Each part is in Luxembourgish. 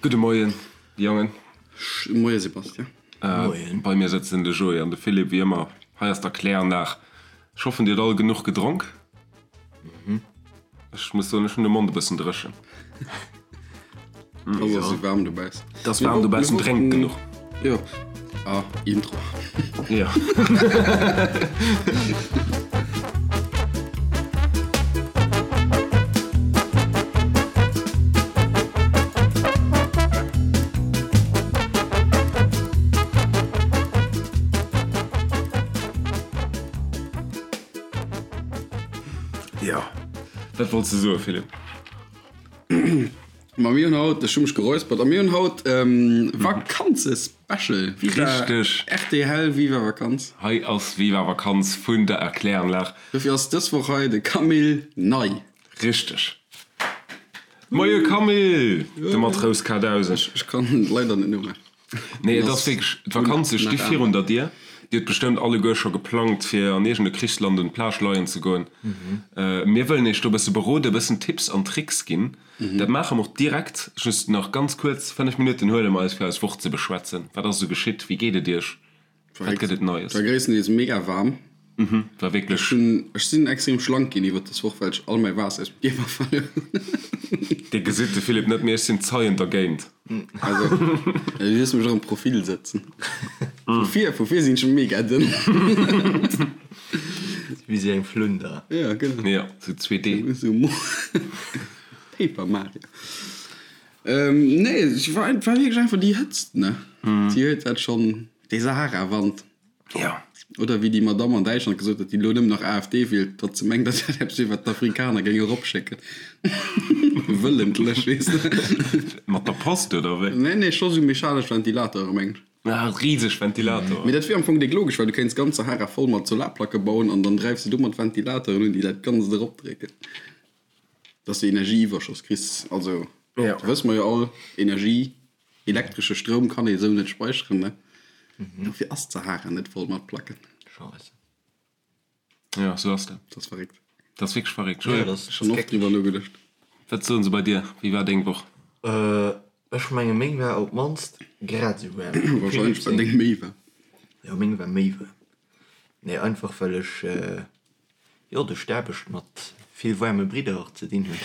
Gudde Moien, Jongen. Moie Sebastian. Moien. Bei mir sëtzen de Joé an de Philippe, wéi ëmmer. Hei ass d'Erkläranlag. Ech hoffen, dir hutt all genuch gedronk. Ech muss soen, ech hunn de Mond e bëssen dréchen. Et ass waarm dobaussen. Et ass waarm dobaussen, drénkt genuch. Jo. Ah, Intro. Jo. Jo. Wat wollts de soen, Philippe? Ma mir hunn haut, ech hu mech geräuspert, a mir hunn haut Vakanzespecial. Viva Richteg. RTL, Viva Vakanz. Hei ass Viva Vakanz vun der Erkläranlag. Dofir ass dës Woch hei de Camille Ney. Richteg. Moie Camille, de Matrous K1000. Ech kann leider net nomaachen. Nee, et ass wierklech, d'Vakanze sti virun der Dier. Dir hutt bestëmmt alleguer scho geplangt, fir an iergend e Krichsland un d'Plage leien ze goen. Mir wëllen iech do e bësse beroden, e bëssen Tipps an Tricks ginn. Dat maache mer och direkt. Just nach ganz kuerz, 5 Minutten huele mer eis, fir eis Woch ze beschwätzen. Wat ass esou geschitt? Wéi geet et iech? Wat gëtt et Neies? War gréisstendeels mega waarm. Mhm, war wierklech. Ech hunn, ech sinn extrem schlank ginn iwwert dës Woch, well ech all mäi Waasser aus dem Kierper verluer hunn. Dir gesitt de Philippe net, mee ech sinn Zeien dergéint. Also, du hues mech och am Profil sëtzen. Vu vir, vu vir sinn ech mega dënn. Wéi sou eng Flunder. Ja, genau. Ja, sou 2D. Sou Paper Mario. Nee, et war wierklech einfach déi Hëtzt, ne? Déi huet dat schonn. Dee Sahara-Wand. Ja. Oder wéi déi Madamm an Däitschland gesot huet, déi elo nëmmen nach AfD wielt, datt se mengt, dat wär eppes wier, wat d'Afrikaner géinge eropschécken. Wëllentlech, weess de. Mat der Post, oder wéi? Nee, nee, scho sou mechanesch Ventilatore, mengen ech. Ah, riseg Ventilatoren. Mee dat wier am Fong déck logesch, well du kéints d'ganz Sahara voll mat Solarplacke bauen an dann dräifs de domat Ventilatoren un, déi dat Ganzt eropdrécken. Dass de Energieiwwerschoss kriss. Also, dat wësse mer jo all, Energie, elektresche Stroum kann ee sou net speicheren, ne? Dofir ass d'Sahara net voll mat Placken. Scheisse. Jo, sou ass dat. Dat ass verréckt. Dat ass wierklech verréckt. Jo, dat ass Schonn oft driwwer nogeduecht. Wat soen se bei dir? Wéi war deng Woch? Ech menge meng war op d'mannst grad esou waarm. Warscheinlech war deng méi waarm. Jo, meng war méi waarm. Nee, einfach well ech Jo, duerch d'Aarbecht mat vill waarme Bridder ze dinn hunn.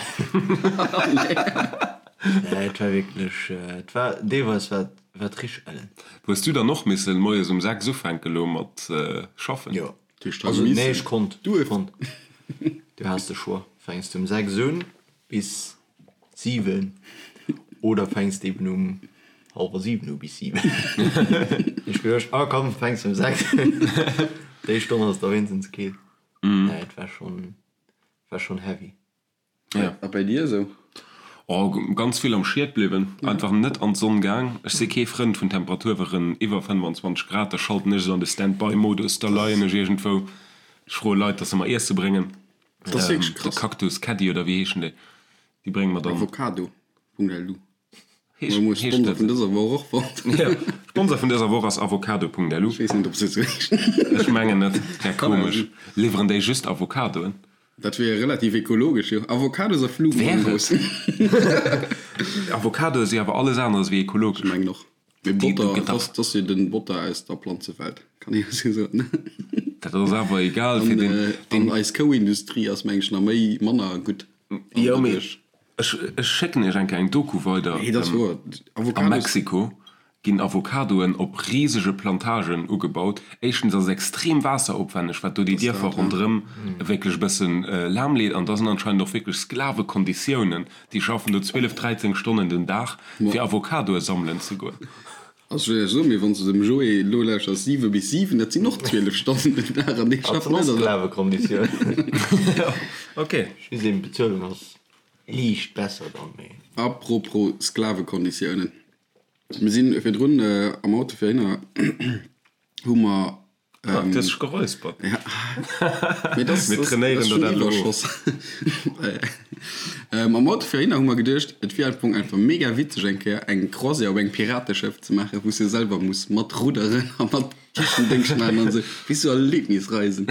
Nee, et war wierklech, et war deelweis war war et richteg ellen. Hues du dann och missen moies um 6 ufänken elo mat schaffen? Jo, also nee, ech konnt, ech konnt. Du has de Choix, fänks de um 6 un bis 7 oder fänks de eben um hallwer 7 u bis 7. Ech geduecht, ah komm, fänks um 6 un, déi Stonn ass da wéinstens keel. Nee, et war schon, war schon heavy. Ja. A bei dir esou? Oh, ganz vill am Schied bliwwen, einfach net an d'Sonn gaang. Ech si kee Frënd vun Temperaturweren iwwer 25 Grad, da schalten ech esou an de Stand-by-Modus, da leien ech iergendwou, ech froe Leit, dass se mer Iesse bréngen. Dat ass wierklech De krass. Cactus Caddy oder wéi heeschen déi? Déi brénge mer dann. Avocado.lu. Heescht, Mir hu heescht Sponsor dat vun esou? dëser Woch och fonnt. Ja, Sponsor vun dëser Woch ass Avocado.lu. Ech weess net, ob se esou heeschen. Ech mengen net. Wär Kann awer komesch. sinn. Liwweren déi just Avocadoen? Dat wier relativ ekologesch, jo. Avocados a Wär et? Flugmangos. Avocadoe si awer alles aneres wéi Ech ekologesch. mengen och. Mee Botter, dat ass, dat ass jo den Botter aus der Planzewelt, kann ee jo sou soen. Dat ass awer egal fir den, den. An eis Kouindustrie ass meng ech nach méi, manner gutt. Jo mee ech, ech schécken iech eng Kéier eng Doku weider. Nee, dat ass wouer. A Mexiko ginn Avocadoen op risege Plantagen ugebaut. Éischtens ass et extrem waasseropwänneg, wat do déi Dierfer ronderëm wierklech e bëssen lahm leet. An da sinn anscheinend och wierklech Sklavekonditiounen. Déi schaffen do 12, 13 Stonnen den Dag, fir Avocadoe sammelen ze goen. Also ech wëll näischt soen, mee wann s de dem Joé elo lauschters, 7 bis 7, dat sinn och 12 Stonnen den Dag an dee schafft net. Sklavekonditiounen. Ok. Just eben d'Bezuelung ass liicht besser dann, mee. Apropos Sklavekonditiounen, mir sinn virdrun am Auto fir hinner, hu mer Ah, du hues dech geräuspert. Ja. Mee das, Mir das, trainéieren das der dat elo of. Iwwerschoss. ähm, am Auto fir hinner hu mer geduecht, et wier am Fong einfach mega witzeg eng Kéier eng Croisière op engem Pirateschëff ze maachen, wou s de selwer muss mat rudderen a mat Kichen-Déngscht maachen an esou. Wéi sou Erlebnisreisen.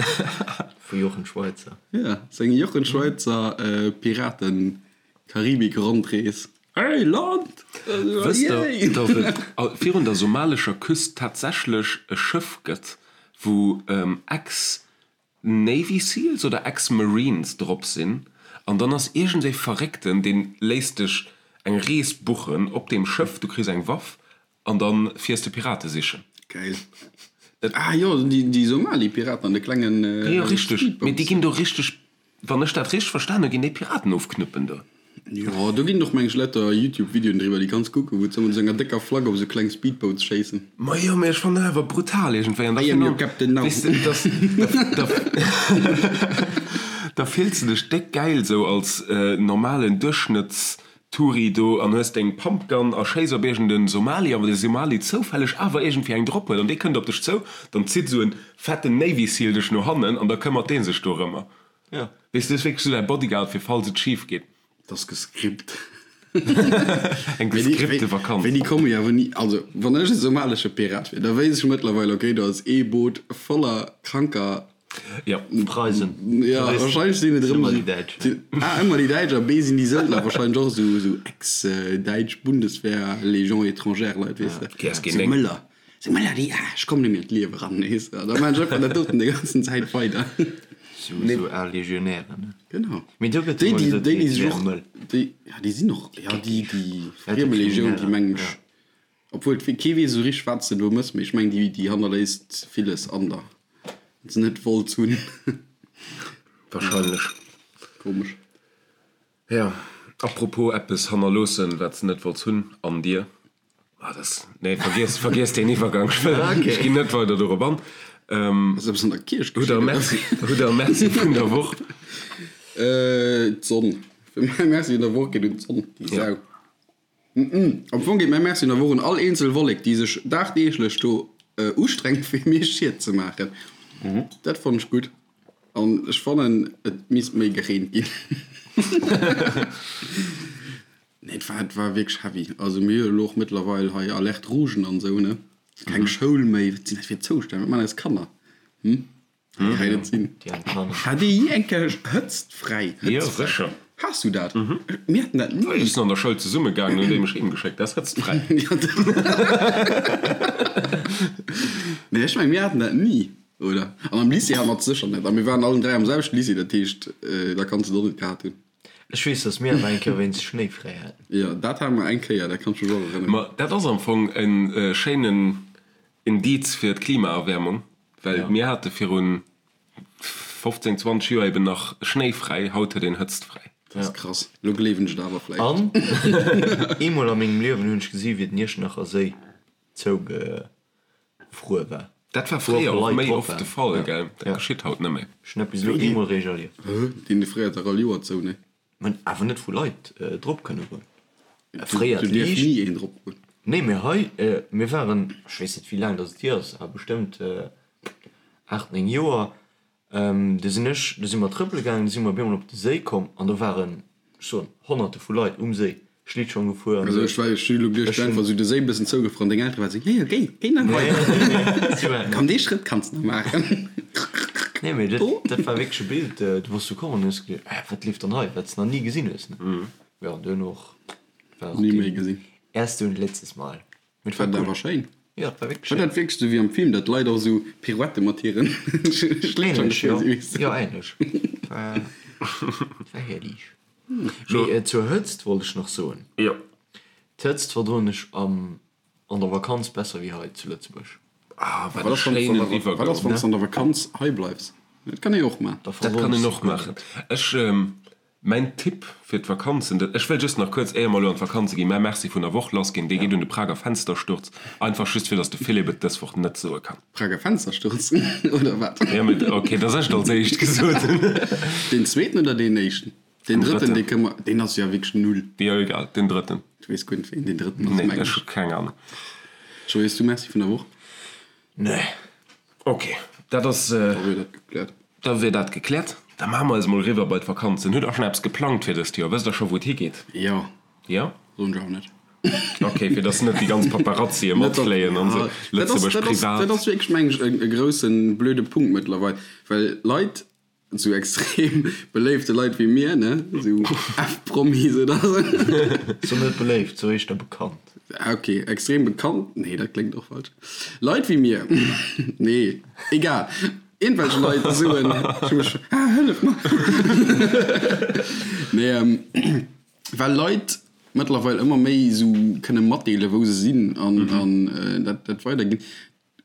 Vu Jochen Schweizer. Ja, sou eng Jochen Schweizer äh, Piraten-Karibik-Rondrees. Hey Land! Wësst der, datt et virun der somalescher Küst tatsächlech e Schëff gëtt, wou Ex-Navy Seals oder Ex-Marines drop sinn? An dann ass iergendee Verréckten, dee léisst dech eng Rees buchen op deem Schëff, du kriss eng Waff an da fiers de Pirate sichen. Geil. Ah jo, déi Somali-Piraten an de klengen Speedboats. Jo, richteg. Mee déi ginn do richteg, wann ech dat richteg verstan hunn, ginn déi Piraten ofknëppen do. Jo, do ginn och meng ech lauter Youtube-Videoen driwwer, déi kanns kucken, wou se mat esou enger décker Flagg op esou kleng Speedboats schéissen. Majo, mee ech fannen dat awer brutal iergendwéi. An da I am your captain now. Weess de, dass, da, da fills de dech déck gäil esou als normalen Duerchschnëtts Touri do an hues deng Pumpgun a schéiss op iergend en Somali an wann de Somali zoufälleg awer iergendwéi eng drop huet an dee kënnt op dech zou, dann zitt esou en fetten Navy Seal dech no hannen an da këmmert dee sech dorëmmer. Ja. Weess du, ass wierklech esou däi Bodyguard fir falls et schif geet. Dat ass gescript. Eng gescripte Vakanz. Wéi déi komme jo awer ni, also wann ech e somalesche Pirat wier, da wéisst ech mëttlerweil, okay, do ass ee Boot voller kranker Ja. Preisen. Ja, wahrscheinlech sinn et erëm Ëmmer déi Däitsch. sinn, A, ëmmer déi Däitsch a B, sinn déi Söldner wahrscheinlech och esou, esou ex-däitsch Bundeswehr, Légion étrangère Leit, weess de. GSG Sou 9. Mëller, sou Mëller, déi, ah, ech kommen net méi an d'Liewe ran, weess de. Da maachen ech einfach dat doten déi ganzen Zäit weider. Sou, sou al Legionären, ne? Genau. Mee do gëtt Déi, ëmmer déi, gesot, déi, déi déi sech wäre och, mëll. déi, ja, déi sinn och, ja, déi, déi Friemelegioun, déi mengen ech, Obwuel kee weess esou richteg wat s de do mëss, mee ech mengen déi déi hannerléisst villes an der, wat se net wollt hunn. Wahrscheinlech. Komesch. Ja, apropos eppes hannerloossen wat s de net wollts hunn an dir. Ah dat, nee vergiess, vergiess deen Iwwergang, ech wëll, ech ginn net weider dorop an. Ass eppes an der Kierch Hutt der geschitt, oder? Merci, hutt der Merci vun der Woch? D'Sonn. Mäi Merci vun der Woch geet un d'Sonn, déi Sau. Am Fong geet mäi Merci un der Woch un all eenzel Wollek, déi sech dagdeeglech do ustrengt, fir mir Schied ze maachen. Dat fannen ech gutt. An ech fannen, et misst méi gereent ginn. Nee, et war, et war wierklech heavy. Also mir hu jo elo och mëttlerweil hei Alerte rougen an esou, ne? Keng Schoul méi. Wat sinn dat fir Zoustänn? Wat maachen eis Kanner? Hm? Kann net sinn. Hat Dir jee eng Kéier Hëtzt fräi? Jo, sécher. Has du dat? Mir haten dat ni. Ech sinn an der Schoul zesumme gaangen, hunn déi mech heem geschéckt. Dat ass Hëtzt fräi. Nee, ech mengen, mir haten dat ni, oder? An am Lycée hate mer et sécher net. A mir waren allen 3 am selwechten Lycée, dat heescht, da kanns de et och net gehat hunn. Ech weess, datt mir awer eng Kéier wéinst Schnéi fräi haten. Jo, dat hate mer eng Kéier, dat kann ech mech och erënneren. Ma dat ass am Fong e schéinen Indiz fir d'Klimaerwäermung. Well mir hate virun 15, 20 Joer eben nach schnéifräi, haut huet een hëtztfräi. Dat ass krass. Lo gleewen ech et awer vläicht. An eemol a mengem Liewen hunn ech gesi wéi den Iechternacher Séi zougefruer war. Dat war Wou och fréier och Leit méi drop oft de waren. Fall, gell? Dat geschitt haut net méi. Ech hunn dat bis elo eemol réischt erlieft. Hë? Deen fréiert dach all Joer zou, ne? Mä awer net wou Leit drop kënne goen. Fréier Do dierf d'Liicht. ni een drop goen. Nee, mee hei, mir waren, ech weess net wéi laang datt et hier ass, awer bestëmmt 8, 9 Joer, du sinn ech, du si mer trëppele gaangen, du si mer op eemol op de Séi komm an do waren, ech soen, Honnerte vu Leit um Séi, Schlittschong gefuer an Also esou. ech war, ech hu lo geduecht, Ech hunn. einfach sou de Séi bëssen zougefruer an deng Eltere waren sou, jo jo, géi, géi nach Nee, weider. nee, nee, si waren Komm, net. dee Schrëtt kanns de nach maachen. Nee, mee dat, Oh. dat war wierklech e Bild, du bass du komm an hues geduecht, äh, wat leeft dann hei, wat s de nach ni gesinn hues, ne? Jo, an duerno och war och Ni méi deen gesinn. erste und letztes Mal. Mee et War war dat cool. awer schéin. Jo, et war wierklech War schéin. dat wierklech sou wéi am Film, datt d'Leit och sou Pirouette mat hiren Schlittschong Ähnlech, jo. gefuer sinn, weess de? Jo, ähnlech. Et war, et war herrlich. Mee zur Hëtzt wollt ech nach soen. Jo. D'Hëtzt verdroen ech am an der Vakanz besser wéi hei zu Lëtzebuerg. Ah, wat Wat e ass, wann s schéinen an der, wat ass, Iwwergang. wann s an der Vakanz hei bleifs? Dat kann ee och maachen. Da Dat verdroen kann ech een se och guer maachen. net. Ech, mäin Tipp fir d'Vakanzen, dat, ech wëll just nach kuerz, éier mer elo an d'Vakanze ginn, mäi Merci vun der Woch lassginn, dee geet un de Prager Fenstersturz. Einfach just fir, datt de Philippe et dës Woch net soe kann. Prager Fenstersturz, oder wat? Ja, mee, okay, dass ech et als éischt gesot hunn. Deen zweeten oder deen éischten? Deen drëtten, dee kënne mer, deen ass jo wierklech null. Jo, egal, deen drëtten. Du weess guer net, wéi een deen drëtten ass, Nee, mengen ech ech. hu keng Ahnung. Joé, hues du Merci vun der Woch? Nee. Ok, dat ass. Da wier dat gekläert. Da wier dat gekläert. Da maache mer eis mol eriwwer bei d'Vakanzen. Hutt der schonn eppes geplangt fir dëst Joer? Wësst der scho wou et higeet? Jo. Jo? Soen ech awer net. Ok, fir dass net déi ganz Paparazzie matfléien an esou. Lëtzebuerg privat. Dat ass wierklech, mengen ech, e groussen blöde Punkt mëttlerweil, well Leit. Sou extrem beléifte Leit wéi mir, ne? Sou F-Promis oder sou. So net beléift, so éischter bekannt. Ah, ok, extrem bekannt, nee, dat kléngt och falsch. Leit wéi mir, nee, egal, iergendwelch Leit soen, ech hu mech, ah, hëllef mer! Nee, well Leit mëttlerweil ëmmer méi sou kënne matdeelen, wou se sinn an, an dat, dat weiderginn,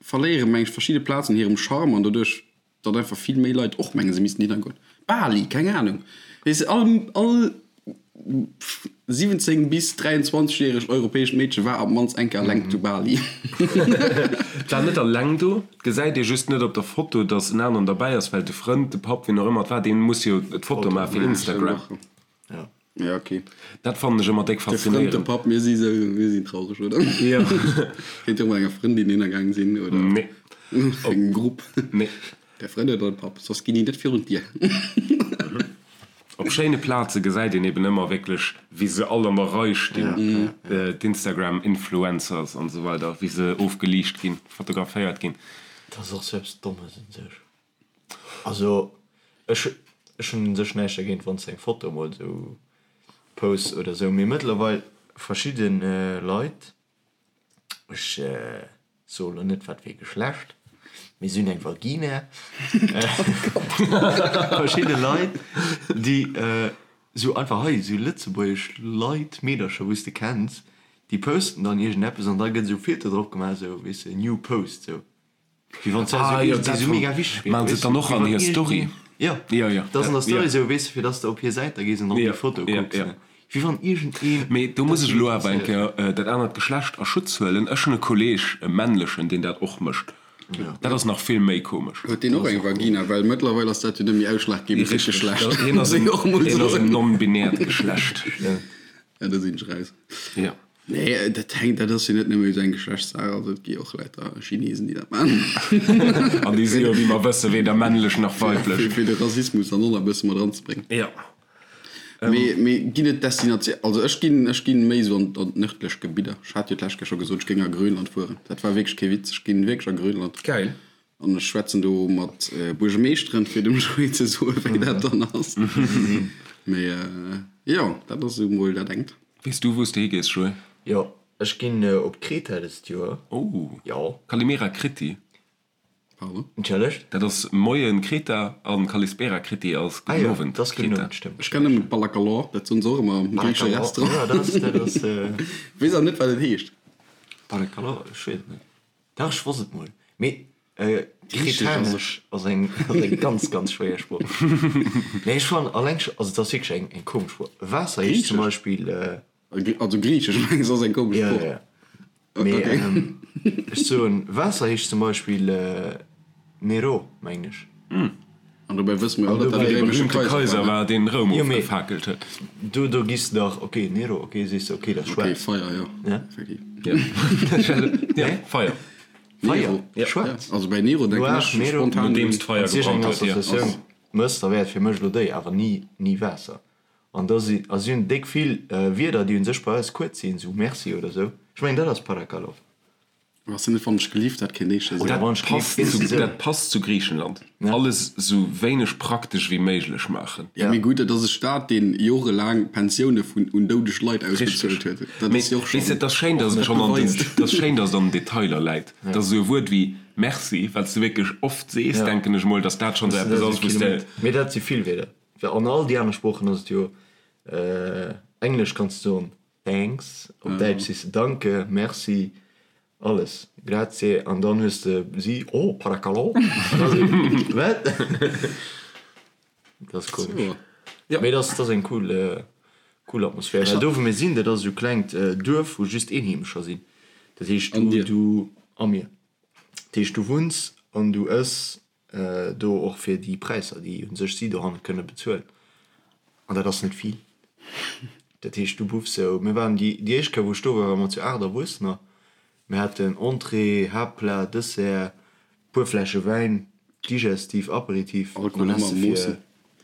verléiere meng ech verschidde Plazen hirem Charme an doduerch Datt einfach vill méi Leit och mengen, se missten hinner goen. Bali, keng Ahnung. Weess de, all, all 17 bis 23 järegt europäescht Meedche war op d'mannst eng Kéier eleng zu Bali. War net eleng do. Et gesäit ee just net op der Foto, datt en aneren derbäi ass, well de Frënd, de Papp, wien och ëmmer et war, dee muss jo d'Foto maache fir Instagram. Ja. Ja, ok. Dat fannen ech ëmmer déck De Frënd, de faszinéierend. Papp, mir si sou, mir sinn traureg, oder? Jo. Kéint jo och mat enger Frëndin hinner gaang sinn, oder? Nee. Engem Grupp. Nee. Der Frënd oder de Papp, soss ginn déi net virun d'Dier. Op schéine Plaze gesäit een eben ëmmer wierklech, wéi se all an der Rei stinn, d'Instagram-Influencers an esou weider, wéi se ofgeliicht ginn, fotograféiert ginn. Dat ass och sou eppes Dommes un sech. Also ech ech hunn un sech näischt dergéint wann s de eng Foto emol esou posts oder esou, mee mëttlerweil verschidde Leit, ech soe lo net wat fir ee Geschlecht, mee si hunn eng Vagina, verschidde Leit déi esou einfach hei esou lëtzebuergesch Leit, Meedercher wou s de kenns, déi posten dann iergendeppes an da gëtt esou Filter drop gemaach esou weess de new post esou. Wéi wann ah, jo, dat sou mega wichteg wier. Maan se dann och an hir Story? Jo, jo, jo. Dat ass an der Story sou, weess de, fir dass de op hir Säit da gees an op déi Foto kucks. Ja, ja. Wéi wann iergendeen. Mee do muss ech elo awer eng Kéier dat anert Geschlecht a Schutz huelen. Ech hunn e Kolleeg, e männlechen, deen dat och mécht. Dat ass nach vill méi komesch. Huet deen och eng Vagina? Well mëttlerweil ass dat jo net méi ausschlaggebend fir d'Geschlecht. Hien ass en non-binäert Geschlecht. Ja, do sinn ech raus. Jo. Nee, dat hänkt, dat ass jo net nëmme esou eng Geschlechtssaach, also et gi och Leit da Chinesen, déi dat maachen. An déi si jo, wéi mer wëssen, weder männlech nach weiblech. Fir, fir de Rassismus dann och nach e bësse mat eranzebréngen. Jo. Mee, mee ginn et Destinatioun, also ech ginn, ech ginn méi esou an, an d'nördlech Gebidder. Ech hat jo d'lescht Kéier scho gesot, ech géing a Grönland fueren. Dat war wierklech kee Witz, ech ginn wierklech a Grönland. Geil. An ech schwätzen do mat Buergemeeschteren, fir dem Joé ze soen, wéi dat dann ass. Mee jo, dat ass esou mol dat engt. Weess du, wou s de higees, Joé? Jo, ech ginn op Kreta dëst Joer. Oh! Jo. Kalimera Kriti. Pardon? Entschëllegt? Dat ass Moien Kreta an Kalispera Kriti ass Gudden Owend Kreta. Ah jo, dat ass Gudden Owend, stëmmt. Ech kennen nëmmen Balakalor, dat soen se och ëmmer am griichesche Restaurant. Jo, dat ass, dat ass. Weess awer net, wat et heescht. Balakalor, ech weess et net. Dach, ech wosst et mol. Mee Kretanesch ass eng ganz, ganz schwéier Sprooch. Mee ech fannen alleng scho, also et ass wierklech eng eng komesch Sprooch. Waasser heescht zum Beispill. Also Griichesch mengs ass eng komesch Sprooch. Jo, jo. Mee ech soen, Waasser heescht zum Beispill Nero, mengen ech. An dobäi wësse mer jo all, datt dat de réimesche Kaiser war, deen Roum ofgefakelt huet. Do, do giss de dach, ok, Nero, ok, sees de, ok, dat ass schwaarz. Ok, Feier, jo, effektiv. Ja, Feier. Feier, schwaarz. Also bäi Nero denken ech spontan un. Nodeems d'Feier gebrannt huet, jo. Wann s de iergendeng Associatioun mëss, da wär et fir mech elo déi, awer ni, ni Waasser. An da si, a si hunn déck vill Wierder, déi u sech bei eis kuerz sinn, sou Merci oder sou. Ech mengen, dat ass Parakalov. Ass net wann ech gelift dat kéint eeschter sinn. Dat passt zu, dat passt zu Griichenland. Alles sou wéineg praktesch wéi méiglech maachen. Jo mee gutt, dat ass e Staat deen jorelaang Pensioune vun un doudeg Leit ausbezuelt huet. Dat ass jo och schonn. Weess de, et ass schéin, dass et schonn an den, et ass schéin, dass et an den Detailer läit. Dass esou e Wuert wéi Merci, wat s de wierklech oft sees, denken ech mol, dass dat schonn esou eppes ass, wou s de. Mee dat si vill Wierder. Well an all déi aner Sproochen ass et jo, Englesch kanns de soen Thanks, op Däitsch sees de Danke, Merci, alles, Grazie, an dann hues de si, Oh, paracalo, an da si, Wat? Dat ass komesch. Mee dat ass eng cool, cool Atmosphär. Well do wou mir sinn, dat ass esou e klengt Duerf, wou just Eenheemescher sinn. Dat heescht, du, du, a mir. Dat heescht, du wunns an du ëss Do och fir déi Präisser, déi u sech si dohanne kënne bezuelen. An dat ass net vill. Dat heescht, du buffs sou, mir waren déi déi éischt Kéier, wou ech do war, ware mer zu 8 Erwuessener. Mir haten Entrée, Haaptplat, Dessert, puer Fläsche Wäin, Digestif, Aperitif an Alkohol dann ëmmer has de am fir Moossen.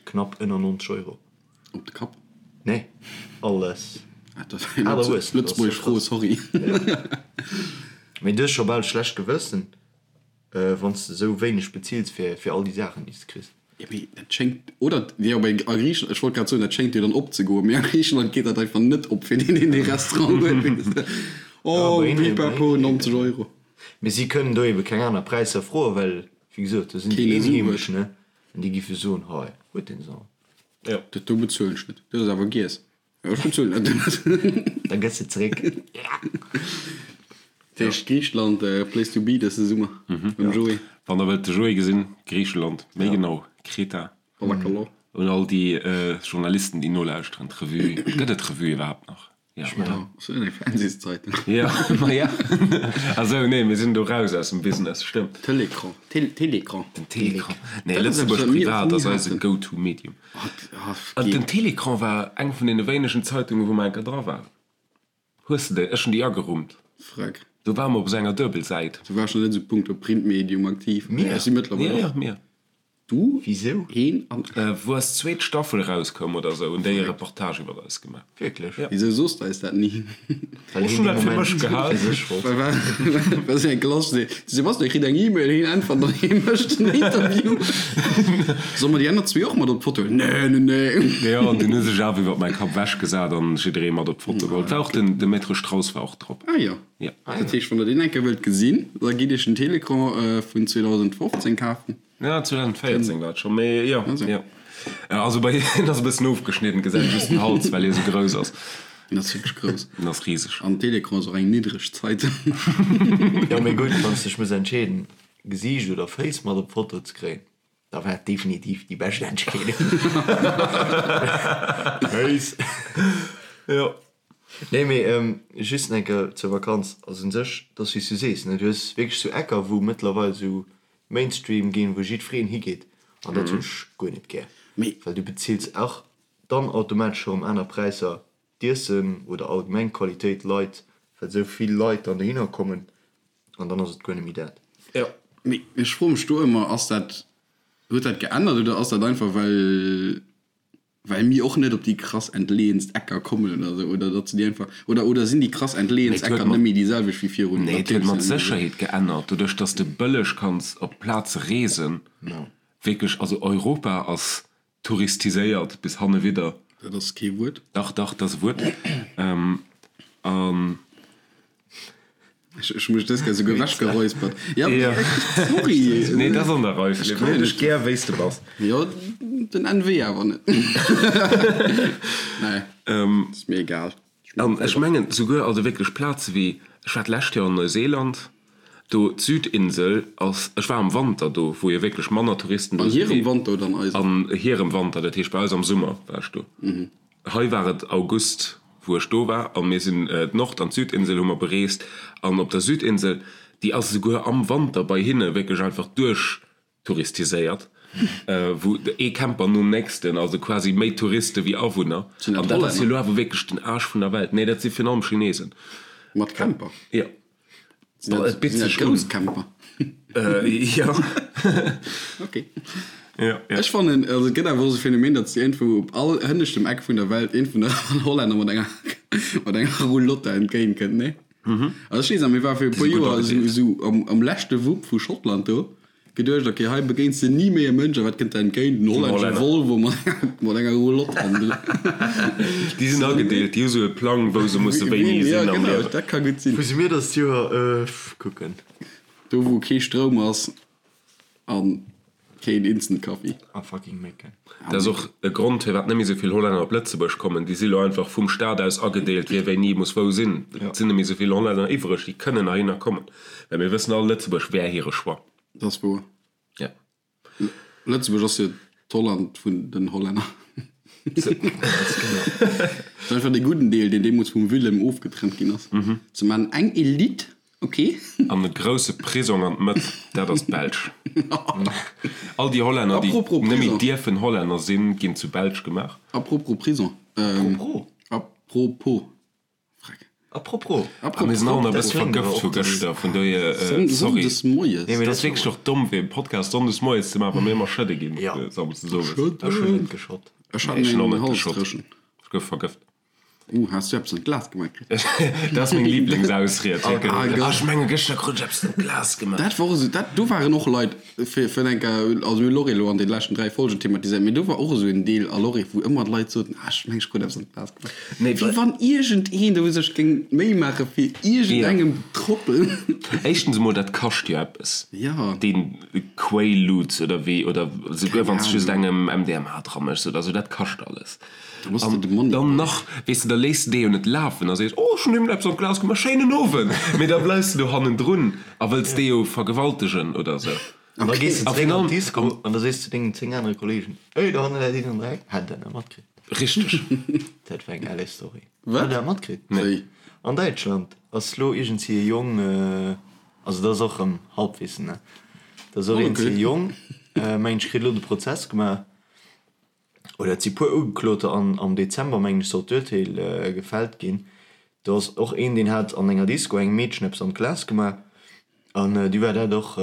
knapp ënner 90 Euro. Op de Kapp? Nee, alles. Ah, dat ass eng lëtzebuergesch Fro, sorry. Mee du hues scho bal schlecht Gewëssen. Wann s de esou wéineg bezills fir all déi Saachen, déi s de kriss. Jo, mee dat schéngt, oder? Jo, mee a Griichenland, ech wollt grad soen, dat schéngt jo dann opzegoen, mee a Griichenland geet dat einfach net op fir deen, deen dee Restaurant huet, weess de. Oh, pipapo, 90 Euro. Mee si kënnen do ebe keng aner Präisser froen, well, wéi gesot, do sinn déi Eenheemesch, ne, an déi giffe soen, hei, huet deen se all. Jo. Dat do bezuelen ech net. Dat ass awer giess. Jo, ech bezuelen dat net. Da gëss de zeréck. Dat heescht Griicheland, place to be dëse Summer mam Joé. Wann der wëllt de Joé gesinn, Griicheland, méi genau Kreta. Ballakalo. Un all déi Journalisten déi nolauschteren, d'Revue, gëtt et d'Revue iwwerhaapt nach? Ja, oder? Ass dat eng Fernsehszeitung? Ja, ma ja. Ah sou, nee, mir sinn do raus aus dem Business, stëmmt. Télécran, Télécran. Den Télécran. Nee, Lëtzebuerg Privat ass eise Go-to-Medium. An den Télécran war eng vun deene wéinegen Zeitungen, wou mer enker dra waren. Hues de déi? Ech hunn déi agerummt. Freck. Do ware mer op esou enger Duebelsäit. Du waars nach net esou punkto Printmedium aktiv. Mir? Ech si mëttlerweil och. Ja, ja, mir. Du, Wisou? heen an. Wou eis zweet Staffel erauskoum oder esou, hunn déi e Reportage iwwer eis gemaach. Wierklech? Ja. Wisou soos de eis dat ni? Well Ech heen hunn dee dat fir Moment mech gehal. fir sech wollt. Well war sou eng Klass, de Sebastian kritt eng E-Mail, heen äntwert an hee mécht en Interview. Solle mer déi aner zwee och mat op d'Foto? Nee, nee, nee. Jo, an dunn hu sech awer iwwer mäi Kapp ewechgesat an jidderee mat op d'Foto geholl. Et war och den, de Maître Strauss war och drop. Ah jo. Ja. Dat heescht, wann der deen eng Kéier wëllt gesinn, da gitt iech den Télécran vun 2015 kafen. Ja, 2014 war et scho, mee jo, jo. Also bei hien ass e bëssen ofgeschnidden, gesäit just den Hals, well hie sou grouss ass. Hien ass wierklech grouss. Hien ass riseg. An Télécran ass och eng niddreg Zeitung. Jo, mee gutt, wann s dech muss entscheeden, Gesiicht oder Féiss mat op d'Foto ze kréien, da war et definitiv déi bescht Entscheedung. Féiss. Jo. Nee, mee just eng Kéier zur Vakanz. Also un sech, et ass wéi s du sees, ne, du hues wierklech sou Ecker, wou mëttlerweil sou Mainstream ginn, wou jiddwereen higeet, an dat hunn ech guer net gär, well du bezills och dann automatesch erëm aner Präisser, d'Iessen oder allgemeng d'Qualitéit leit, well esou vill Leit dann dohinner kommen, an dann ass et guer net méi dat. Jo, mee ech froe mech do ëmmer, ass dat, huet dat geännert oder ass dat einfach well Well mir och net op déi krass entleeënst Ecker kommen oder sou, oder datt se déi einfach, oder, oder sinn déi krass entleeënst Mee et huet Ecker mat, net méi déi selwecht wéi virun nee, et huet mat Sécherheet geännert, doduerch datt s de bëlleg kanns op Plaze reesen. Wierklech, also Europa ass touristiséiert bis hannewidder. Dat ass kee Wuert. Dach, dach, dat ass e Wuert. An. Ech hu mech dës Kéier souguer ewechgeräuspert. Ja, sorry. Nee, dat ass an der Rei, Philippe. Mir hunn dech gär, wéi s de bass. Jo, den NW awer net. Nee, ass mir egal. An ech mengen souguer, also wierklech Plaze wéi, ech war d'lescht Joer an Neuseeland, do d'Südinsel ass, ech war am Wanter do, wou jo wierklech manner Touristen do sinn. An hirem Wanter oder an eisem? An hirem Wanter, dat heescht bei eis am Summer war ech do. Hei war et August wou ech do war a mir sinn d'Nord an d'Südinsel hu mer bereest an op der Südinsel, déi ass esouguer am Wanter bei hinne wierklech einfach duerchtouristiséiert, wou ee Camper nom nächsten, also quasi méi Touriste wéi Awunner. Sinn dat An dat ass jo Hollänner? elo awer wierklech den Aarsch vun der Welt. Nee, dat si virun allem Chinesen. Mat Camper? Jo. Sinn dat, Et bitt sinn dat sech un. grouss Camper? Jo. Ok. Ja, ja. Ech fannen, also et gëtt awer och esou e Phänomen, datt s de iergendwou op all hënneschtem Eck vun der Welt een vun der Hollänner mat enger, mat enger Roulotte entgéint kënnt, nee? Also ech weess nach, mir ware fir e puer si gutt Joer esou, agedeelt. esou am, am leschte Wupp vu Schottland do, geduecht, ok, hei begéins de ni méi e Mënsch, a wat kënnt der entgéint? En hollännesche Hollänner. Volvo mat enger, mat enger Roulotte hannendrun. Déi sinn agedeelt, déi hu sou e Plang, wou se musse wéini Ja, sinn am genau, Liewen. dat ka gutt sinn. Wou si mir dëst Joer? Kucken. Do wou kee Stroum ass an keen Instant Coffee. A fucking Mécken. Dat ass och e Grond firwat net méi esou vill Hollänner op Lëtzebuerg kommen. Déi si lo einfach vum Staat aus agedeelt, wie wéini muss wou sinn. Et sinn net méi esou vill Hollänner iwwreg, déi kënnen heihinner kommen. Well mir wëssen all, Lëtzebuerg wär hire Choix. Dat ass wouer. Ja. Lëtzebuerg ass jo d'Holland vun den Hollänner. Dat ass einfach dee gudden Deel, deen deemools vum Willem ofgetrennt ginn ass. Se maachen eng Elite, ok. An e grousse Prisong an d'Mëtt, dat ass d'Belsch. All déi Hollänner, déi Apropos net méi Prison. dierfen Hollänner sinn, ginn zu Belsch gemaach. Apropos Prison. Apropos. Apropos. Freck. Apropos. A mir sinn all nach e bësse vergëft vu gëschter, vun dohier, sorry. Sonndes moies. Nee, mee dat ass wierklech och domm, fir e Podcast sonndes moies ze maachen, wa mir ëmmer schëdde ginn samsdes owes. Ech hunn net geschott. Ech hat Nee, ech hunn och meng net Hals geschott. dréchen. Ech gouf vergëft. Uh, has du eppes an d'Glas gemaach kritt? Dat ass meng Lieblingsausried. Ah, Gott. Ah, ech menge gëschter krut ech eppes an d'Glas gemaach. Dat war och esou, dat, do waren och Leit, fir, fir eng Kéier, also mir hu Lorry elo an den leschten 3 Folgen thematiséiert, mee do war och esou en Deel a Lorry, wou ëmmer d'Leit soten, ah, ech meng ech krut eppes an d'Glas gemaach. Nee, Wéi wann iergendeen do sech géing d'Méi maache fir iergendengem Trottel. Éischtens emol, dat kascht jo eppes. Jo. Deen Quaaludes oder wéi, oder souguer wann s de just engem MDMA dra méchs oder esou, dat kascht alles. An dann nach, weess de, da léiss de dee jo net lafen a sees, oh, ech hunn him eppes an d'Glas gemaach, schéinen Owend! Mee da bleifs de do hannendrun a wëlls dee jo vergewaltegen oder esou. An da gees de zeréck an d'Disco an da sees de dengen 10 anere Kolleegen, Ey, do hanne läit een am Dreck. Hat der dat matkritt? Richteg. Dat war eng LA Story. Wat? Hat der dat matkritt? Nee. An Däitschland ass lo iergendsi e Jong, also dat ass och erëm Halbwissen, ne? Dat ass och iergendsi e Jong, mengen ech, kritt elo de Prozess gemaach. Oder et si puer Ugekloter an am Dezember, mengen ech, soll d'Urteel gefällt ginn. Do ass och een, deen hat an enger Disco engem Meedchen eppes an d'Glas gemaach an du war dat och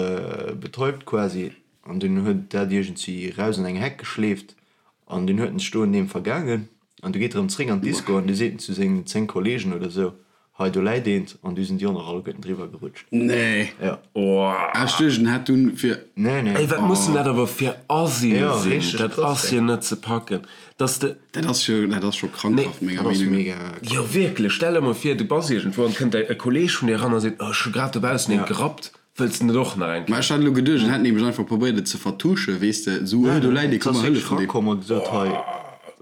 betäubt quasi an dunn huet dat iergendwéi raus an eng Heck geschleeft an dunn huet en sech do un deem vergaangen an du geet erëm zréck an d'Disco an du seet en zu sengen 10 Kollegen oder sou, Hei do läit eent an du sinn déi och nach alleguerten driwwer gerutscht. Nee. Ja. Ah, ech duecht en hätt dunn fir. Nee, nee. Ey, wat mussen dat awer fir Asien Ja, sinn? richteg Dat krass, ass jo net ze packen, dass de. Dat ass jo, dat ass scho krankhaft, Nee. menger Dat ass Meenung no. mega Jo, wierklech, stell der mol vir, du bass iergendwou an et kënnt e Kolleeg vun dir eran a seet, oh, ech hu grad dobaussen eent gerappt, wëlls de net och nach eng Mä Kéier? ech hat elo geduecht, en hätt nämlech einfach probéiert et ze vertuschen, weess de, esou, oh, do läit ee, Et komm ass mer wierklech hëllefen deem. rakomm a gesot, hei,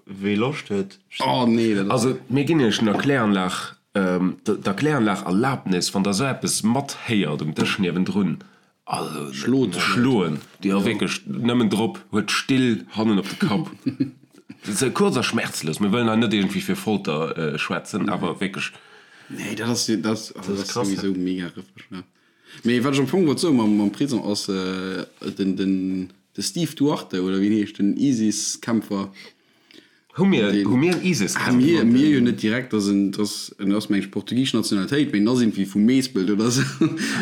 wee Loscht huet. Oh nee, dat ass. Also, mir ginn iech den Erkläranlag, d'Erkläranlag Erlabnis, wann der esou eppes mathéiert um Dësch niewendrun, also Schlot schloen, jo wierklech, nëmmen drop, huet d'Still hannen op de Kapp, sou kuerz a schmerzlos. Mir wëllen hei net iergendwéi fir Folter schwätzen, awer wierklech. Nee, dat ass, dat ass, also dat ass souwisou mega rëffeg, ja. Mee wat ech am Fong wollt soen mam, mam Prison ass, den, den, de Steve Duarte, oder wéi en heescht, den ISIS-Kämpfer, Hu mir, hu mir en ISIS-Kämpfer? Ah, mir, mir jo net direkt, dass en, dass en ass meng ech portugisesch Nationalitéit, mee en ass irgendwie vu Meespelt oder sou.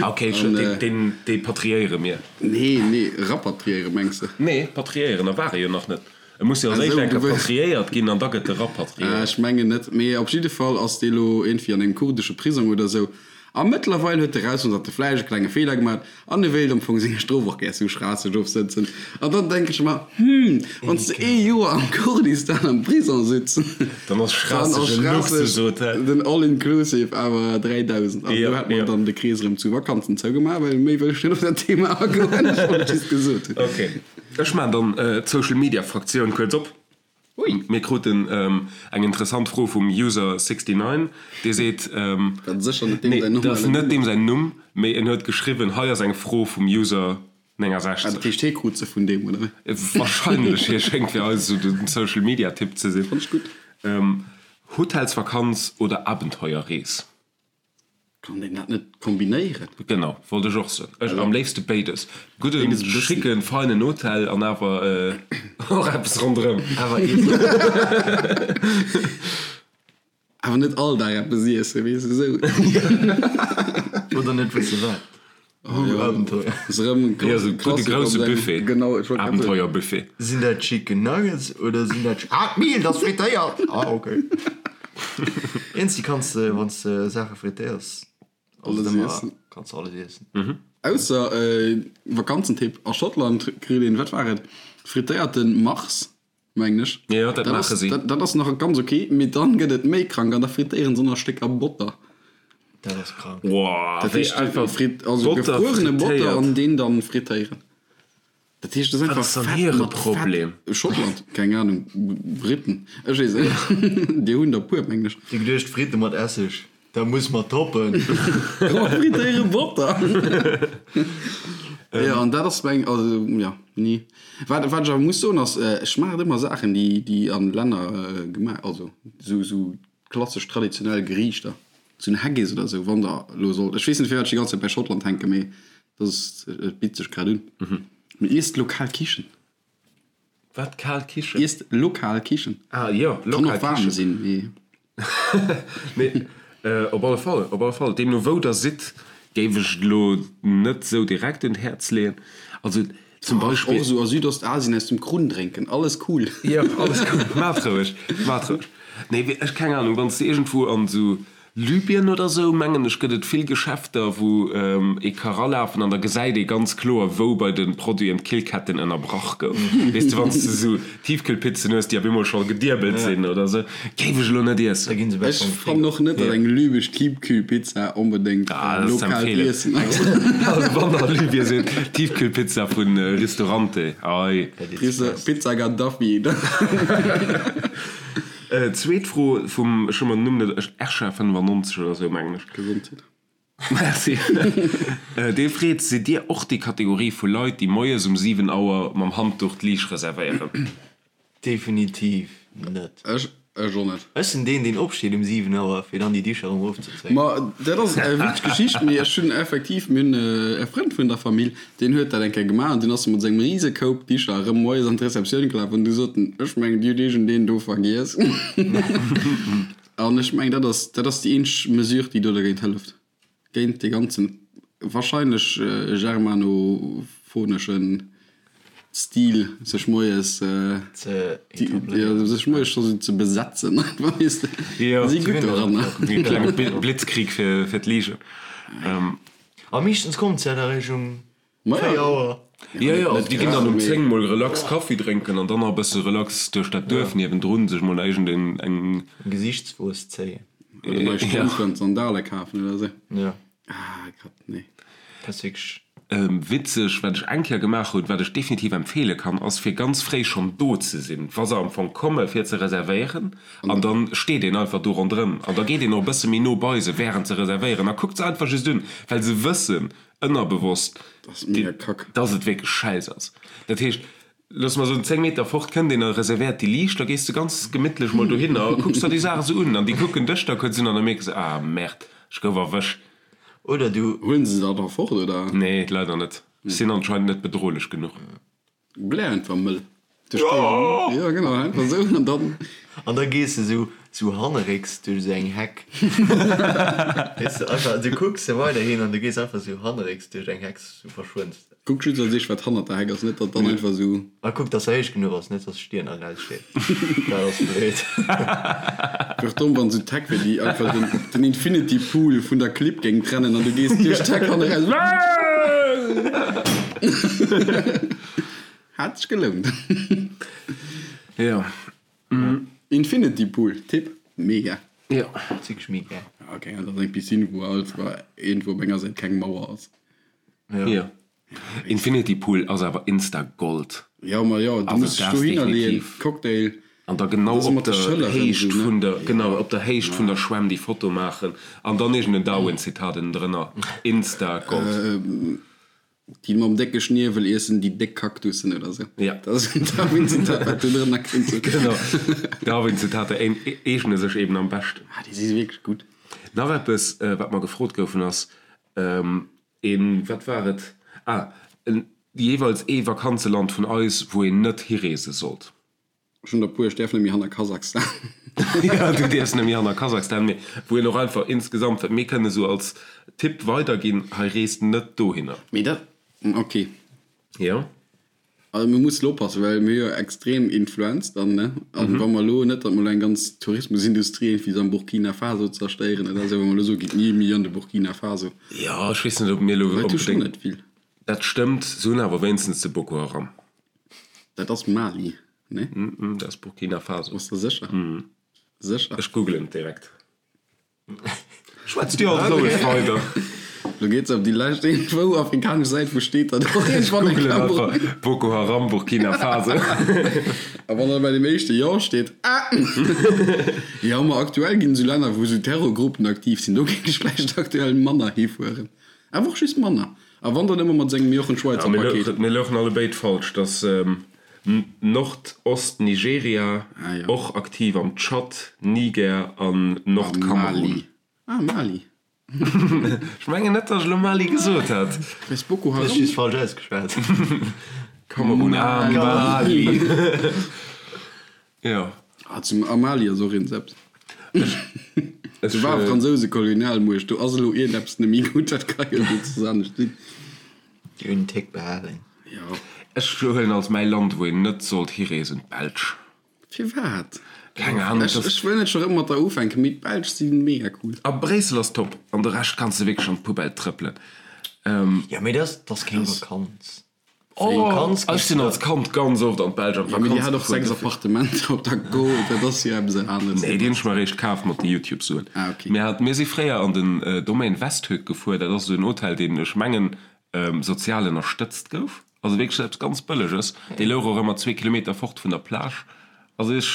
Ah, okay, ech, deen, deen, dee patriéiere mir. Nee, nee, rapatriéiere mengs de? Nee, patriéieren, a war e jo nach net. E muss jo als éischt eng Kéier patriéiert ginn an da gëtt e rapatriéiert. Ah, ech mengen net, mee op jidde Fall ass dee lo irgendwie an engem kurdesche Prisong oder sou. A mëttlerweil huet e rausfonnt, datt e vläicht e klenge Feeler gemaach huet an e wéilt am Fong seng Strof och gär zu Schraasseg ofsëtzen. An dann denke ech mer, Hm, wann s de ee Joer am Kurdistan am Prison sitz, Dann ass dann ass Schraasseg e Schraasseg Luxushotel. den All-inclusive awer 3.000. An do hätt mer dann de Krees erëm zu Vakanzen zougemaach, well méi wëll ech net op dat Thema agoen. Ech wollt et just gesot hunn. Ok, ech maachen dann d'Social-Media-Fraktioun kuerz op. Ui. Mir kruten eng interessant Fro vum User 69, dee seet, Dat ass sécher net deem nee, säin dat ass normalen net Numm. deem säin Numm, mee en huet geschriwwen, hei ass eng Fro vum User Ah, 69. dat heescht, hee krut se vun deem, oder wéi? Wahrscheinlech, hie schéngt fir eis esou den Social Media Typ ze sinn. Fand ech gutt. Hotelsvakanz oder Abenteuerrees? Kann een dat net kombinéieren? Genau, wollt ech och soen. Ech am léifste béides. Gudden, Béides e bëssen. schicken, feinen Hotel an awer och eppes ronderëm. Awer iessen. Awer net all Dag eppes iessen, weess de, esou. Oder net wësse wat. Oh, Abenteuer. Ass erëm en Jo, esou gudde Klassiker op grousse sengem. Buffet. Genau, ech wollt grad soen. Abenteuerbuffet. Sinn dat Chicken Nuggets oder sinn dat. Ah, d'Miel, dat ass frittéiert! Ah, okay. Iergendwéi kanns de, wann s de Saache frittéiers, Alles ëmmer, iessen. kanns de alles iessen. Ausser, Vakanzentipp, a Schottland kritt een, wat war et, frittéierte Mars. Mengen ech. Jo, dat maache si. Dat ass nach ganz ok, mee dann gëtt et méi krank an da frittéieren se nach Stécker Botter. Dat ass krank. Wow, Dat wéi heescht, einfach frit, also Botter gefruerene Botter frittéiert. an deen dann frittéieren. Dat heescht, dat ass Wat einfach ass dann Fett hire mat Fett. Problem? Schottland, keng Ahnung, Briten, ech weess et net. Déi hunn der puer, mengen ech. Déi geduecht, Fritte mat Esseg, dat muss mer toppen. Komm, frittéiere Botter! Jo, an dat ass meng, also jo, ni. Wat, wat ech awer muss soen ass, ech maachen ëmmer Saachen, déi, déi an Länner gemaach, also sou, sou klassesch traditionell Geriichter, sou en Haggis oder sou, wann der elo sollt, ech weess net firwat ech déi ganz Zäit bei Schottland hänken, mee dat ass, et bitt sech grad un. Mee iesst lokal Kichen. Wat, kal Kichen? Iesst lokal Kichen. Ah jo, Kann lokal och warm Kichen. sinn, mee. Nee, op alle Fall, op alle Fall. Deemno wou der sidd, géif ech et elo net esou direkt un d'Häerz leeën. Also zum Beispill. Och esou a Südostasien aus dem Krunn drénken, alles cool. Jo, alles cool, maacht roueg, maacht roueg. Nee, ech keng Ahnung, wann s de iergendwou an esou Libyen oder sou, mengen ech, gëtt et vill Geschäfter, wou ee ka ralafen an da gesäit ee ganz kloer, wou bei de Produiten d'Killketten ënnerbrach gouf. Weess de, wann s de sou Tiefkühlpizzen hues, déi op eemol scho gediebelt sinn oder sou, géif ech elo net iessen. Ech fannen och net, datt eng libesch Tiefkühlpizza onbedéngt lokaalt Iessen ass. Also wann der a Libyen sidd, Tiefkühlpizza vu Ristorante, ei. Pizza Gaddafi. Zweet Fro vum, ech hu mer den Numm net, Ersha 95 oder sou mengen ech. Gesondheet. Merci. Dee freet, Sidd Dir och déi Kategorie vu Leit, déi moies um 7 Auer mam Handduch d'Liicht reservéieren? Definitiv net. Ech ech och net. Ech sinn deen, deen opsteet um 7 Auer, fir dann déi Dicher erëm erofzezéien. Ma dat ass eng witzeg Geschicht, mee ech hunn effektiv, mir hunn e Frënd vun der Famill, Deen huet dat eng Kéier gemaach an dunn ass e mat sengem rise Koup Bicher erëm moies an d'Receptioun gelaf an du sot en, Ech mengen, dir hutt iergendeen do vergiess. An ech mengen, dat ass, dat ass déi eenzeg Mesure, déi do dergéint hëlleft, géint dee ganzen wahrscheinlech germanophoneschen Stil, sech moies, Ze etabléieren. sech moies scho sou ze besetzen einfach, weess de. Jo, Si gutt doranner. E klenge Blitzkrieg fir d'Ligen. A meeschtens kommt se ja da réischt um 4 Auer. Jo, jo, also déi ginn dann um 10 mol relax Kaffi drénken an dann nach e bësse relax duerch dat Duerf niewendrun sech mol iergend eng. Eng Gesichtswuess zéien. Oder nei Strëmp an Sandale kafen oder sou. Jo. Ah Gott, nee. Dat ass wierklech. Witzeg, wat ech eng Kéier gemaach hunn, wat ech definitiv empfeele kann, ass fir ganz fréi schonn do ze sinn, wa se am Fong komme fir ze reservéieren. An dann steet een einfach do ronderëm an da geet een och e bësse méi no bei se während se reservéieren a kuckt se einfach just un, well se wëssen ënnerbewosst, dass et wierklech schäiss ass. Dat heescht, loosse mer soen, 10 Meter fort kënnt een a reservéiert déi Liicht, da gees de ganz gemittlech mol dohinner a kucks der déi Saach esou un an déi kucken dech da kuerz un an da mierke se, ah Merde, ech gouf erwëscht. Oder du. Huelen se se da fort, oder? Nee, leider net. Ech sinn anscheinend net bedrohlech genuch. Blär einfach mëll. Jo genau, einfach esou an dann. An da gees de sou sou hannerrécks duerch esou eng Heck. Weess de, einfach, du kucks se weiderhin an du gees einfach sou hannerrécks duerch eng Heck, sou verschwënns de. Kuck just als éischt wat hannert der Heck ass, net datt dann einfach esou. A kuck dass se héich genuch ass, net dass d'Stier nach eraussteet. Dat ass blöd. Wier och domm wann esou d'Heck wier déi einfach den den Infinity Pool vun der Clibb géing trennen an du gees duerch d'Heck hanne raus. Hat sech gelount. Jo. Infinity Pool, Tipp, mega. Jo. Wierklech mega. Ok, dat ass eng Piscine wou alt iergendwou op enger Säit keng Mauer ass. Jo. Infinity Pool ass awer Insta Gold. Jo, ma jo, du muss dech dohinner leeën, Cocktail. An da genau op der Héicht vun der, genau, op der Héicht vun der Schwämm déi Foto maachen an dann iergend en Darwin-Zitat ënnendrënner. Insta Gold. Déi mam décke Schniewel iessen déi déck Kaktussen oder sou. Ja. Dat ass en Darwin-Zitat, wat do drënner kéint sinn. Genau. Darwin-Zitater eegne sech eben am beschten. Ah, déi si wierklech gutt. Nach eppes, wat mer gefrot goufen, ass, Een, wat war et? Ah, en, jeeweils ee Vakanzeland vun eis, wou een net hireese sollt. Ech hunn der puer, ech däerf net méi hanner Kasachstan. Ja, du däerfs net méi hanner Kasachstan, mee wou een och einfach insgesamt, wat mir kënnen esou als Tipp weiderginn, hei reest net dohinner. Mee dat, ok. Jo. Also mir mussen elo oppassen, well mir hu jo extrem Influenz dann, ne? An wa mer elo, net datt mer elo eng ganz Tourismusindustrie iergendwéi am Burkina Faso zerstéieren oder esou, wa mer elo soe gitt ni méi an de Burkina Faso. Jo, ech weess net, ob mir elo Leit hu schonn net vill. Dat stëmmt, se hunn awer wéinstens de Boko Haram. Dat ass Mali, ne? Dat ass Burkina Faso. Bass de sécher? Sécher? Ech googelen et direkt. Schwätzt dir alt roueg weider. Lo geet se op déi lescht iergendwou afrikanesch Säit, wou steet dat och iergendwann eng Googlen Kéier. einfach Boko Haram Burkina Faso. A wann da bei deem éischte Jo steet, ah! Jo, ma aktuell ginn esou Länner, wou esou Terrorgruppen aktiv sinn, do géing ech vläicht aktuell manner hifueren. Awer och just manner. A wann dann ëmmer mat sengem Jochen Schweizer Paket. Mir louchen allebéid falsch, dass Nordost-Nigeria, och aktiv am Tschad, Niger an Nordkamerun. Ah, Mali. Ech mengen net, datt ech elo Mali gesot hätt. Wéinst Boko Haram? Hues just falsch ausgeschwat. Kamerun a Mali. Jo. Ah, zum a Mali ass och eens eppes. Do war fransouse Kolonialmuecht, do ass elo iergendeppes net méi gutt, dat ka jo net soss anescht sinn. Déi hunn en Tick behalen. Jo. Ech huelen als mäi Land, wou een net sollt hireesen, d'Belsch. Firwat? Keng Ahnung. Ech, ech wëll net scho rëm mat der ufänken, mee d'Belsch si mega cool. A Bréissel ass top, an de Rescht kanns de wierklech an d'Poubelle trëppelen. Jo, mee dat ass keng Vakanz. Oh, ech sinn als Kand ganz oft an d'Belsch an d'Vakanz gefuer. Mee déi hat och 6 Appartementer op der Go, dat ass jo eppes aneres. Nee, déi hunn ech mer eréischt kaf mat de Youtube-Suen. Ah, ok. Mir hat, mir si fréier an den Domaine Westhoek gefuer, dat ass esou en Hotel, deen, ech mengen, sozial ënnerstëtzt gouf. Also wierklech eppes ganz Bëlleges. Dee louch och ëmmer zwee Kilometer fort vun der Plage. Also ech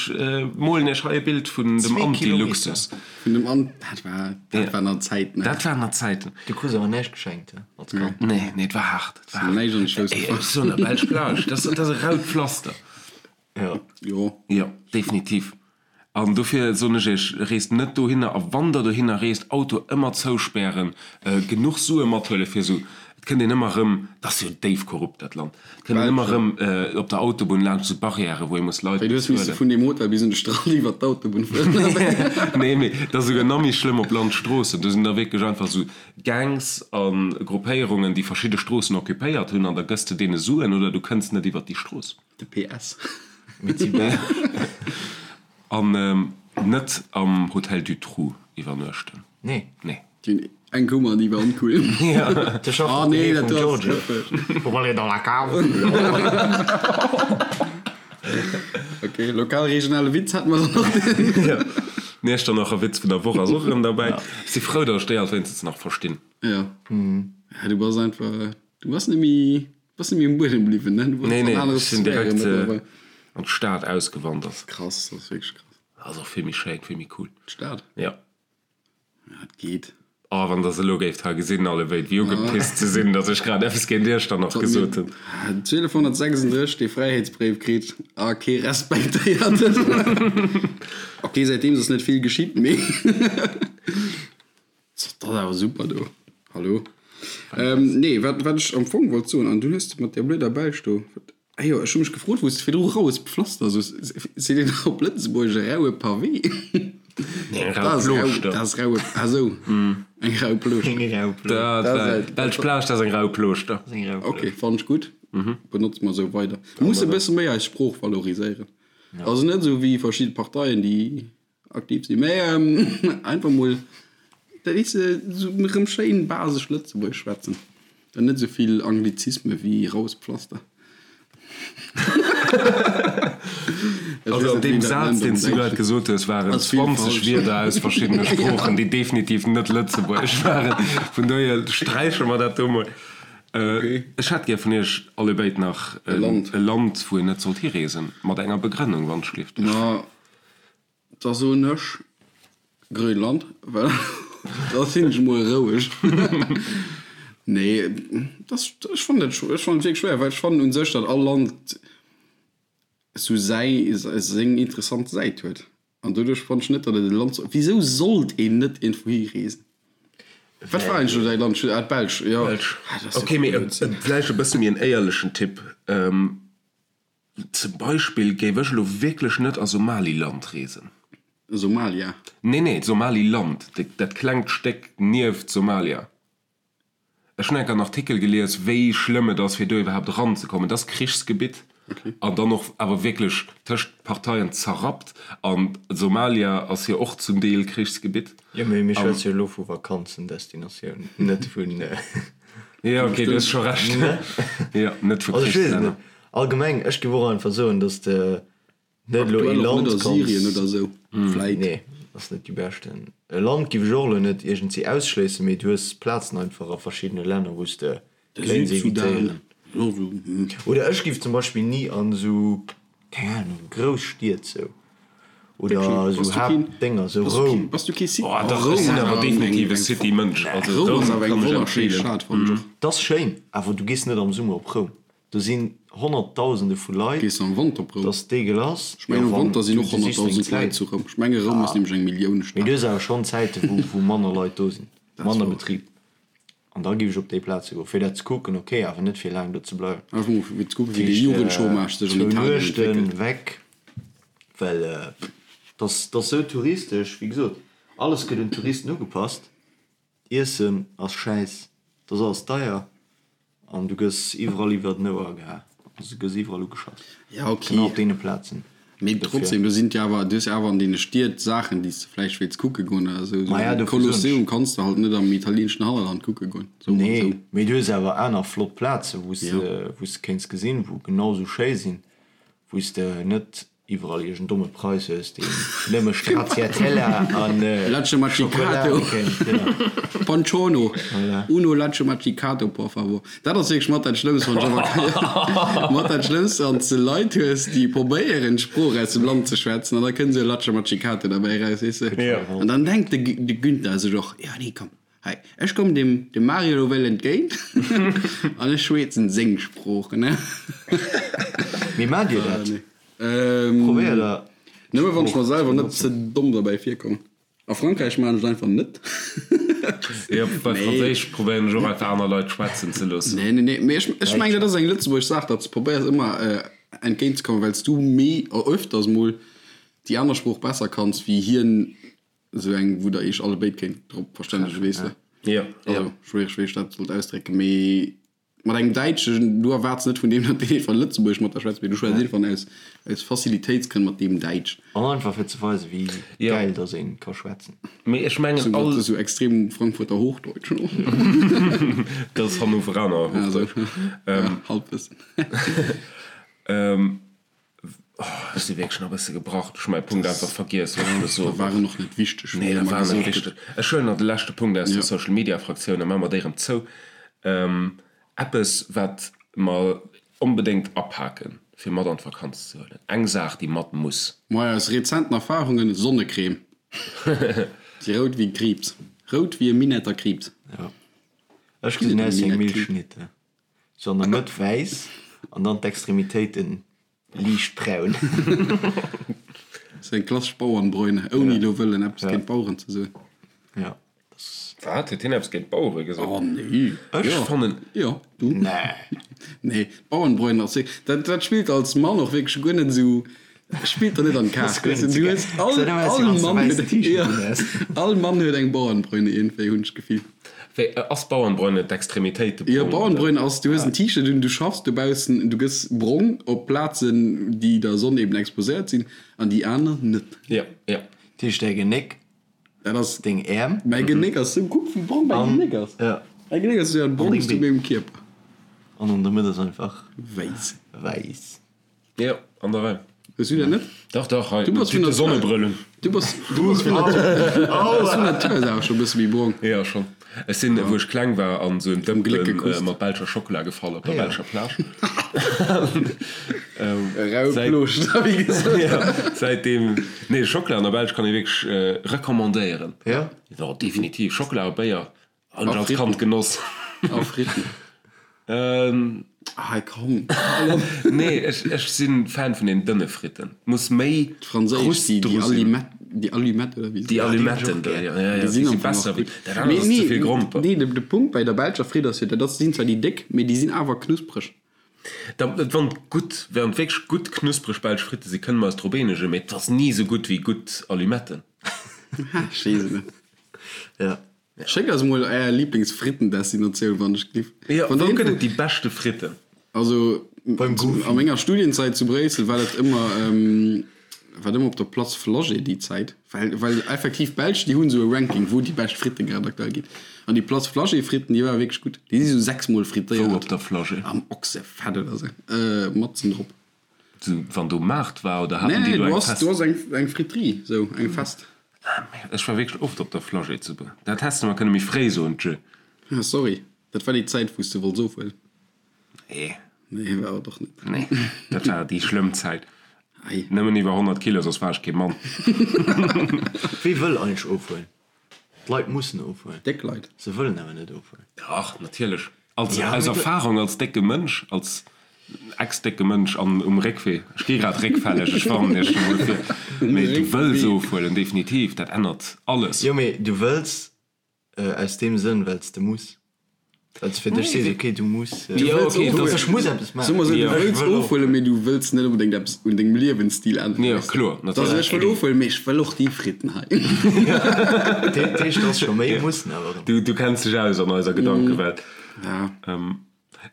molen iech hei e Bild vun dem Anti-Luxus. Vun dem An, dat war, dat waren nach Zäiten. Dat waren nach Zäiten. Du krus awer näischt geschenkt, he, als Kand? Nee, nee, et war haart. Et war haart. Näischt an de Schouss gefall. Ech soen der, Belsch Plage, dat ass e raut Pflaster. Jo. Jo. Jo, definitiv. An dofir soen ech iech, reest net dohinner a wann der dohinner reest, Auto ëmmer zouspären, genuch Sue mathuele fir esou, et kënnt een ëmmer erëm, et ass jo déif korrupt dat Land, et kënnt een ëmmer erëm op der Autobunn laanscht esou Barrièrë wou ee muss Leit Wéi, du hues misse bezuelen. vun deem Hotel bis un de Strand iwwert d'Autobunn fueren oder wéi? Nee, mee et ass esouguer nach méi schlëmm op Landstroossen, do sinn da wierklech einfach esou Gangs a Gruppéierungen, déi verschidde Stroossen occupéiert hunn an da gëss de deene Suen oder du kënns net iwwert déi Strooss. De PS. An net am Hotel du Trou iwwernuechten. Nee. Nee. Déi eng Kummer, déi war oncool. De schafft Oh op nee, de dat vum do ass Giorgio. schëffeg. Pour aller dans la cave. Ok, lokal-regionale Witz hätte mer dann och. Ja. D'Iechternacher Witz vun der Woch ass och erëm derbäi. Ech si frou, datt ech déi alt wéinstens nach verstinn. Ja. Ja, du bass einfach, du bass net méi. Bass net méi um Buedem bliwwen, ne? Du Nee, nee, ech sinn direkt an d'Stad ausgewandert. Krass, dat ass wierklech krass. Ass och vill méi schéin, vill méi cool. D'Stad? Ja. Ja, et geet. Oh, wann der se elo géift hei gesinn, allebéid, wéi ugepisst se sinn, datt ech grad eppes géint Iechternach gesot hunn. 1236 dee Fräiheetsbréif kritt a kee respektéiert en. Ok, säitdeems ass net vill geschitt, mee. Dat ass awer super do. Hallo. Ähm, nee, wat, wat ech am Fong wollt soen, an du hues de mat där blöder Belsch do, wat, ah jo, ech hu mech gefrot, wou s de virdru raues Pflaster soos, seet een op Lëtzebuergesch e raue Pavé? Nee, eng Dat rau ass rau, Plooschter. dat ass raue, ah sou, eng rau Plooschter. Eng rau Plooschter. Dat Dat war, ass- Belsch Plage, dat ass eng rau Plooschter. Eng rau Ok, Plooschter. fannen ech gutt. Benotze mer esou weider. Mir musse e bësse méi eis Sprooch valoriséieren. Also net esou wéi verschidde Parteien, déi Aktiv sinn, mä einfach mol, dat weess de, esou erëm schéin basesch Lëtzebuergesch schwätzen an net esou vill Anglizisme wéi raues Pflaster. Also an deem Saz, deen s du grad gesot hues, waren 20 Wierder aus verschiddene Sproochen, déi definitiv net lëtzebuergesch waren. Vun dohier sträiche mer dat do mol. Ech hätt gär vun iech allebéid nach e Land, wou een net sollt hireesen, mat enger Begrënnung, wann ech gelift. Da soen ech Grönland, well da sinn ech mol roueg. Nee, dat, ech fannen dat, ech fannen et wierklech schwéier, well ech fannen u sech, datt all Land esou säi, seng interessant Säit huet. An doduerch fannen ech net, datt et e Land soll, wisou sollt een net iergendwou hi reesen? Wat war eigentlech elo däi Land? Ah, d'Belsch, jo. Belsch. Ok, mee vläicht e bësse méi en éierlechen Tipp. Zum Beispill géif ech elo wierklech net a Somaliland reesen. Somalia? Nee, nee, Somaliland, dat klengt Stéck nieft Somalia. Ech hunn enk en Artikel gelies, wéi schlëmm et ass, fir do iwwerhaapt eranzekommen. Et ass Krichsgebitt an dann och awer wierklech tëscht Parteien zerrappt. An Somalia ass jo och zum Deel Krichsgebitt. Jo, mee mir schwätze jo elo vu Vakanzendestinatiounen, net vun. Jo, okay, du hues scho Recht. Jo, net vu Also ech weess et Krichslänner. net. Allgemeng, ech géif och einfach soen, dass de net elo ee Aktuell och net Land a Syrien kanns. oder esou, vläit. Nee, ass net déi beschten. E Land géif ech och elo net iergendwéi ausschléissen, mee du hues Plazen einfach a verschiddene Länner, wou s de De kéints Südsudan, evitéieren. jo esou, hm. Oder ech géif zum Beispill ni an esou, keng Ahnung, grouss Stied sou oder Wierklech? esou Bass du keen, Haaptdénger, esou bass du keen, Roum. bass du kee City? Oh, Oh, dach, ech Roum sinn ass awer awer eng, definitiv e eng, City-Mënsch. Also Roum Roum ass awer eng kann ech wonnerschéi empfeelen. Stad, fannen ech och. 't ass schéin, awer du gees net am Summer op Roum. Do sinn Honnertdausende vu Leit. Gees de am Wanter op Roum? Dass dégueulass. Ech mengen am Wanter sinn och 100.000 Leit zu Roum. Ech menge Roum ass nämlech eng Milliounestad. Mee du hues awer schonn Zäite wou wou manner Leit do sinn, manner Betrib. An da géif ech op déi Plaze goen, fir dat ze kucken, ok, awer net fir laang do ze bleiwen. Einfach mol fir ze kucken, wéi de Jugendchômage sech an Zwou Italien Nuechten entwéckelt. weg, well dass dass sou touristesch, wéi gesot, alles gëtt un d'Touristen ugepasst. Iessen ass schäiss, et ass alles deier an du gëss iwwerall iwwer den Ouer geha, also du gëss iwwerall ugeschass, Ja, ok. genau op deene Plazen. Mee trotzdem, do sinn jo awer, du hues jo awer an deene Stied Saachen, déi s de vläicht wéilts kucke goen oder esou. Maja, dofir soen ech. Kolosseum kanns de halt net am italieenschen Hannerland kucke goen, sou an esou. Nee, mee du hues awer aner flott Plaze wou s de, wou s de kéints gesinn, wou genau esou schéi sinn, wou s de net iwwerall iergend domme Prais hues, deen nëmme Stracciatella an Latte Schokola macchiato. kennt. Ja. Pancione. Voilà. Uno Latte macchiato, por favor. Dat ass wierklech mat dat Schlëmmst, wann ech awer mat dat Schlëmmst, wann s de Leit hues, déi probéieren, d'Sprooch aus dem Land ze schwätzen, an da kënnt esou e Latte macchiato derbäi eraus, weess de. Ja. An dann denkt de, de Günther sech och, Jo, nee, komm, hei, ech kommen dem, dem Mario elo wéll entgéint an ech schweetzen seng Sprooch, ne? Mee maacht Dir dat? Probéiert Der Nëmme wann ech mer selwer net ze domm derbäi virkomm. A Frankräich maachen ech et einfach net. Jo, bei Franséisch probéieren ech och einfach aner Leit schwätzen ze loossen. Nee, nee, nee. Mee ech, ech mengen, dat ass eng lëtzebuergesch Saach, datt s de probéiers ëmmer entgéint ze kommen, well s du méi öfters mol déi aner Sprooch besser kanns wéi hien, esou eng, wou der iech allebéid kéint drop verstännegen, weess de. Jo, jo. Also, schwiereg, wéi ech dat sollt ausdrécken, mee Mat engem Däitschen, du erwaarts net vun deem, datt deen einfach Lëtzebuergesch mat der schwätzt, mee du schwätz einfach aus, aus Facilitéitsgrënn mat deem Däitsch. An einfach fir ze weisen, wéi gäil datt ee ka schwätzen. Mee ech mengen all. Dat ass esou extrem Frankfurter Hochdeutsch. Dat ass Hannoveraner Hochdeutsch. Halbwëssen. Ech si wierklech nach e bësse gebrach. Ech hu mäi Punkt einfach vergiess, wat ech wëll soen. Dat war en och net wichteg, wéi Nee, dat war net wichteg. Ech huelen nach de leschte Punkt aus der Social Media Fraktioun a maache mer déi erëm zou. Eppes, wat mer onbedéngt apaken, fir mat an d'Vakanz ze huelen. Eng Saach, déi mat muss. Moi, aus rezenten Erfahrungen, Sonnecreme. Si rout wéi Kriibs. Rout wéi e Minetter Kriibs. Jo. Ech gesinn aus wéi eng Milchschnitte. Sou an der Mëtt wäiss an dann d'Extremitéiten liicht braun. Sou eng klassesch Bauernbräune, ouni elo wëllen eppes géint d'Baueren ze soen. Jo, dat ass. Wat? Huet hien eppes géint d'Bauere gesot? Oh nee. Ech fannen. Jo, du. Nee. Nee, d'Bauernbräune ass wierklech, dat, dat spillt als Mann och wierklech guer net esou, spillt der net an d'Kaart. Weess de, du hues all, all Mann huet, jo, all Mann huet eng Bauernbräune iergendwéi, hunn ech d'Gefill. Wéi, ass Bauernbräune d'Extremitéite brong? Jo, Bauernbräune ass, du hues en T-Shirt un, du schaffs dobaussen, du gëss brong op Plazen, déi der Sonn eben exposéiert sinn, an déi aner net. Jo, jo. Dat heescht, däi Genéck, Dat ass. Deng Äerm. Mäi Genéck ass sou, kuck wéi brong mäi Genéck ass. Jo. Mäi Genéck ass jo dat brongst u mengem Kierper. An an der Mëtt ass einfach. Wäiss. Wäiss. Jo, an der Rei. Hues du dat net? Dach, dach, hei, Du bass vun de der Sonnebrëll un. Du bass, du bass vun Natur, du bass vun Natur aus awer scho e bësse méi brong. Jo, schonn. Ech sinn, wou ech kleng war, an esou en Gléck Dëmpen gekusst. mat belscher Schockela gefall op der belscher Plage. Rau Säit, Plooscht, wéi gesot. jo, säitdeem, nee, Schockela an der Belsch kann ee wierklech recommandéieren. Jo? Jo, definitiv. Schockela a Béier Hunn ech A als Fritten. Kand genoss. A Fritten. Ähm. Hei komm. Nee, ech, ech sinn Fan vun den dënne Fritten. Muss méi D'franséisch, Krust déi, déi dru sinn. Allumette, déi Allumette oder wéi se Déi heeschen. Allumetten do, ja, ja, ja, Déi déi sinn si am Fong och besser wéi, gutt. dat anert Mee ass ze nee, vill Gromper. nee, de, de Punkt bei der belscher Fritt ass jo, dat ass, sinn zwar déi déck, mee déi sinn awer knuspreg. Da, wann et gutt, wann et wierklech gutt knuspreg belsch Fritte sinn, kënne mer eis drop eenegen, mee et ass ni esou gutt wéi gutt Allumetten. Ha, ech weess et net. Ja. Schéckt eis mol är Lieblingsfrittendestinatioun wann ech giff. Jo, wou gëtt et déi beschte Fritten? Also Beim Goofy. a menger Studienzäit zu Bréissel war dat ëmmer war dat ëmmer op der Place Flagey déi Zäit, well well effektiv d'Belsch déi hunn esou e Ranking wou déi bescht Fritte grad aktuell ginn. An déi Place Flagey Fritten déi ware wierklech gutt. Déi si sou 6 mol frittéiert. Wou op der Flagey? Am Ochsefett oder sou, matzen drop. Sou wann do Maart war oder haten Nee, déi do du eng ass, fest? du ass eng, eng Friterie, sou eng fest. Ah merde, ech war wierklech oft op der Flagey zu Br. Dat häss de mer kënne méi fréi soen, tjö. Ah sorry, dat war déi Zäit wou s de wollts ofhuelen. Nee. Nee, war et och net. Nee, dat war déi schlëmm Zäit. Ei. Nëmmen iwwer 100 Kilo, soss war ech kee Mann. Wie wëll eigentlech ofhuelen? D'Leit mussen ofhuelen. Déck Leit. Se wëllen awer net ofhuelen. Dach, natierlech. Als, Ja, aus mee du. Erfahrung als décke Mënsch, als ex-décke Mënsch an um Réckwee, ech gi grad réckfälleg, ech warnen iech scho mol vir, Um mee du wëlls Réckwee. ofhuelen, definitiv, dat ännert alles. Jo, mee du wëlls aus deem Sënn, well s de muss. Well s fir dech sees, okay, du muss, Du wëlls okay, ofhuelen. ech muss eppes Soe mer maachen. esou, du Jo. Ech wëlls wëll ofhuelen, ofhuelen. mee du wëlls net onbedéngt eppes un dengem Liewensstil änneren, Jo, weess de. kloer, Dat ass, natierlech. ech wëll ofhuelen, mee ech wëll och déi Fritten hei. Dat heescht, et ass scho méi mussen awer erëm. Du, du kenns dech aus an eiser Gedankewelt. Ja.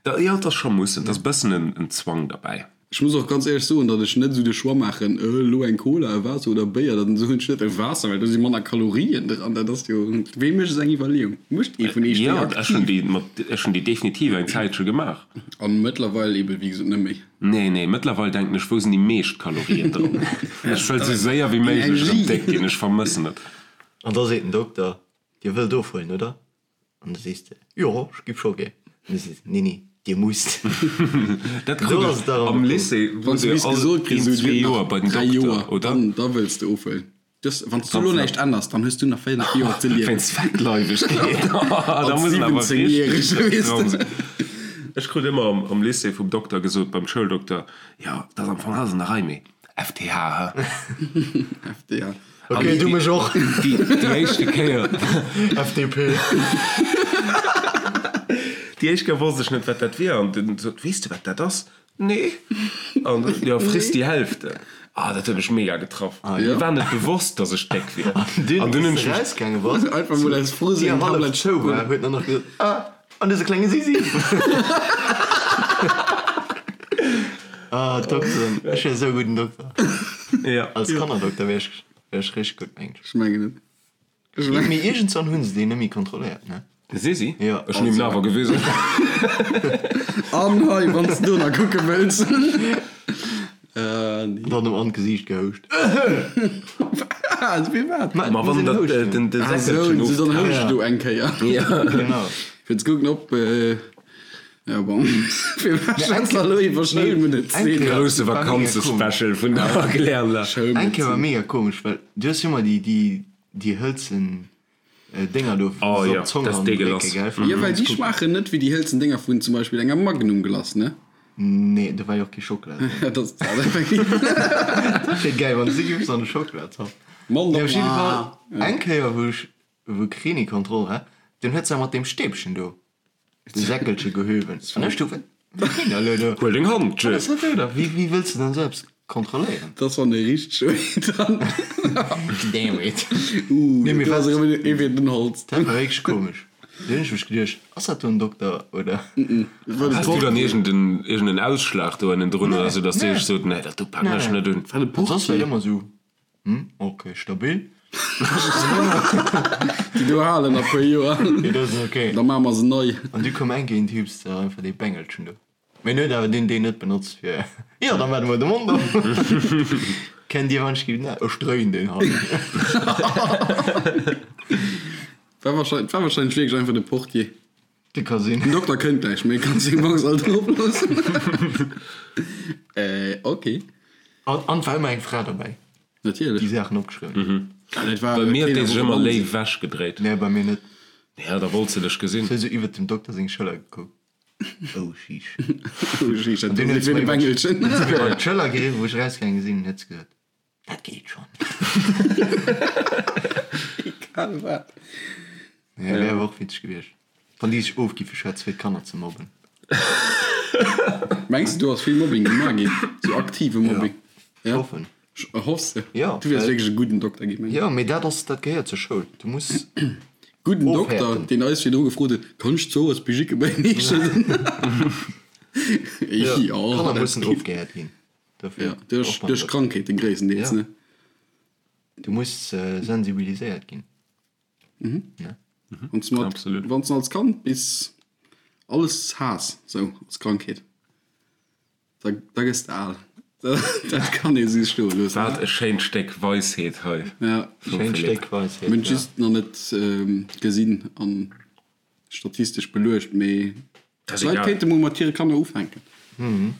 Da, jo, et ass scho mussen, et ass e bëssen en, en Zwang derbäi. Ech muss och ganz éierlech soen, datt ech net esou de Choix maachen, elo eng Cola, e Waasser oder Béier, dann soen ech net e Waasser, well do si manner Kalorien dran. Dat ass jo, wee mécht esou eng Iwwerleeung? Mécht ee vun iech déi Jo, ech hunn déi mat, ech hunn déi definitiv eng Zäitche gemaach. An mëttlerweil eben, wéi gesot, net méi. Nee, nee, mëttlerweil denken ech, wou sinn déi meescht Kalorien dran? Ech wëll esou séier wéi méiglech erëm déck ginn, ech vermëssen et. An da seet den Dokter, Dir wëllt ofhuelen, oder? An da sees de, Jo, ech giff scho gär. An da sees de, Nee, nee, Dir musst. Dat krut ech am Lycée, Wann s du bis gesot kriss, esou, Dir hutt nach 3 Joer, dann da wëlls de ofhuelen. Wann s du elo näischt änners, dann hues du nach 5 Joer ze liewen. Wéinst Fettleiwegkeet, da muss en awer richteg dran sinn. Ech krut ëmmer am Lycée vum Dokter gesot, beim Schouldokter, Jo, dat ass am Fong alles an der Rei, mee FTH, hä? FTH. Ok, du mech och. Déi éischte Kéier. FDP. Déi éischt Kéier wosst ech net, wat dat wier. An den sot, Weess de, wat dat ass? Nee. An jo, friss die Hälfte. Ah, dat huet mech mega getraff. Mir war net bewosst, dass ech déck wier. An dunn hunn ech mech. Erausgaange bass. Einfach mol aus Frust eng Tablett zou war, huet en nach gesot, Ah, an dëse klenge Sisi. Ah, Dokteren. Ech wier esou e gudden Dokter. Ja. Als Kannerdokter wier ech, wier ech richteg gutt, mengen ech. Ech mengen et. Ech mengen. Mee iergendswann hu se deen net méi kontrolléiert, ne? De Sisi? Ja. Ech hunn him awer gewisen. An hei, wann s de do nach kucke wëlls. An dann em an d'Gesiicht gehouscht. Wat? Firwat? Ma wann dat den de Säckelchen of. Dann houscht du eng Kéier. Ja. Genau. Fir ze kucken, ob. Ja bon. Firwat schwätzt der elo iwwer Schoulmedezin? Grousse Vakanzespecial vun der Erklärler. Eng Kéier war mega komesch, well du hues jo ëmmer déi, déi, déi hëlzen Dénger do, Oh wou se ja, op d'Zong dat ass ran drécke, dégueulasse. gell, fir Jo, well ze déi kucken. schmaachen net wéi déi hëlzen Dénger vun zum Beispill enger Magnum Glace, ne? Nee, do war jo och kee Schockela dran. Dat ass dat effektiv. Dat wier gäil, wann s du giffs an de Schockela zappen. Mann, Nee, op jidde ah. Fall, eng Kéier, wou ech, wou Kreni-Kontroll war, dunn huet se mat deem Stäbchen do De Säckelche gehöwen. An ech du, wat geet elo do? Huel deng Hand, Wat ass dat do da? Wéi, wéi wëlls de dann esou eppes kontrolléieren? Dat ass wann ee richteg huet dann. Damn it. Uh, Nee, mee do ass wat? erëm ee fir den Holz. Dat war wierklech komesch. Do hunn ech mech geduecht, ass dat do en Dokter oder? Has du dann iergend en Ausschlag do ënnendrun oder sou, dass déi sech sot, nee, dat do paken ech net un? War de Soss war et Portier. ëmmer esou, Hm, ok, stabil. Déi do halen nach puer Joer. Déi do sinn ok. Da maache mer se nei. An du koum eng Kéier en Typ, der einfach dee Bengelchen do. Mee en huet awer deen deen net benotzt fir, jo, da maache mer de Mond op. Kennt Dir wann ech ginn, ech dréin deen hei. War wahrscheinlech, war wahrscheinlech wierklech einfach de Portier. Dee ka sinn. Den Dokter kënnt gläich, mee kann seng Box alt drop loossen. Äh, ok. An an et war ëmmer eng Fra derbäi, Natierlech. déi Saachen opgeschriwwen huet. Ja, dat war Bei mir huet keen déi sech einfach ëmmer Mann léif sinn. wech gedréit. Nee, bei mir net. Ja, da wollt se dech gesinn. Se huet esou iwwert dem Dokter seng Schëller gekuckt. Oh, sheesh. Oh, sheesh, dat An dunn ass huet se wéi de mer iwwert Bengelchen. huet se mir iwwert d'Schëller geriwwen, wou ech erausgaange sinn, huet se gesot, Dat geet schonn. Egal wat. Ja, wär awer och witzeg gewiescht, wann déi sech ofgiffe schwätze fir d'Kanner ze mobben. Mengs de do ass vill Mobbing gemaach ginn? Sou aktive Mobbing? Ja, ech hoffen. Hoffs de? Ja. Du wäers wierklech e gudden Dokter ginn, mengen ech. Jo, mee dat ass, dat gehéiert zur Schoul. Du muss. Gudden Dokter, Ofhäerten. deen eis virdru gefrot huet, Kann ech d'Zores Bijike bei heeschen? Ja, Jo, Kanner dat mussen geet. ofgehäert ginn. Dofir, Ja, duerch, duerch Krankheeten gréisstendeels, Ja. ne? Du muss sensibiliséiert ginn. Ne? Wann s du mat, Absolut. wann s du als Kand bis alles haass, sou als Krankheet, da, da gëss de al. Dat kann ee sou stoe loossen. Wat e schéint Stéck Weisheet hei Ja. vum Schéint Philippe. Stéck Weisheet, Mir hunn ja. just nach net gesinn an statistesch beluecht, mee Dat ass d'Leit egal. kéinte mol mat hire Kanner ufänken. Mee,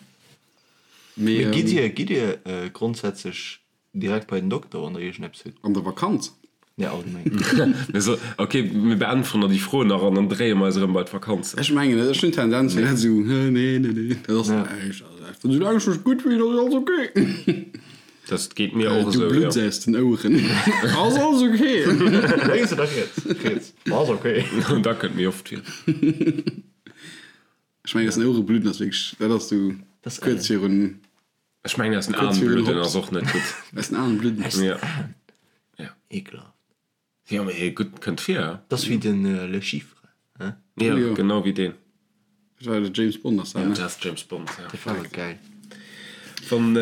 Mee gitt Dir, gitt Dir grondsätzlech direkt bei den Dokter, wann Der iergendeppes hutt? An der Vakanz? Nee, allgemeng. Mir so, ok, mir beäntweren der déi Fro nach an dann dréie mer eis erëm bei d'Vakanzen. Ech mengen net, ech hunn d'Tendenz fir dat esou, nee, nee, nee, dat ass näischt, also einfach soulaang ech mech gutt fillen, ass alles ok. Dat geet mir och Du esou, jo. blutts aus den Oueren, ass alles ok. Lénks oder riets? Riets. Ass ok. Dat kënnt méi oft vir. Ech mengen, aus den Ouere bludden ass wierklech, dat ass sou kuerz virun. Ech mengen, aus den Aen bludden ass och net gutt. Aus den Aen bludden? Aus den Ja. Aen? Ja. Ekelhaft. Jo, mee gutt, kënnt vir, he? Dat ass wéi den Le Chiffre, he? Ja, Jo. genau wéi deen. Dat war de James Bond ass dat, ne? Dat ass James Bond, ja. Dat war awer geil. Wann,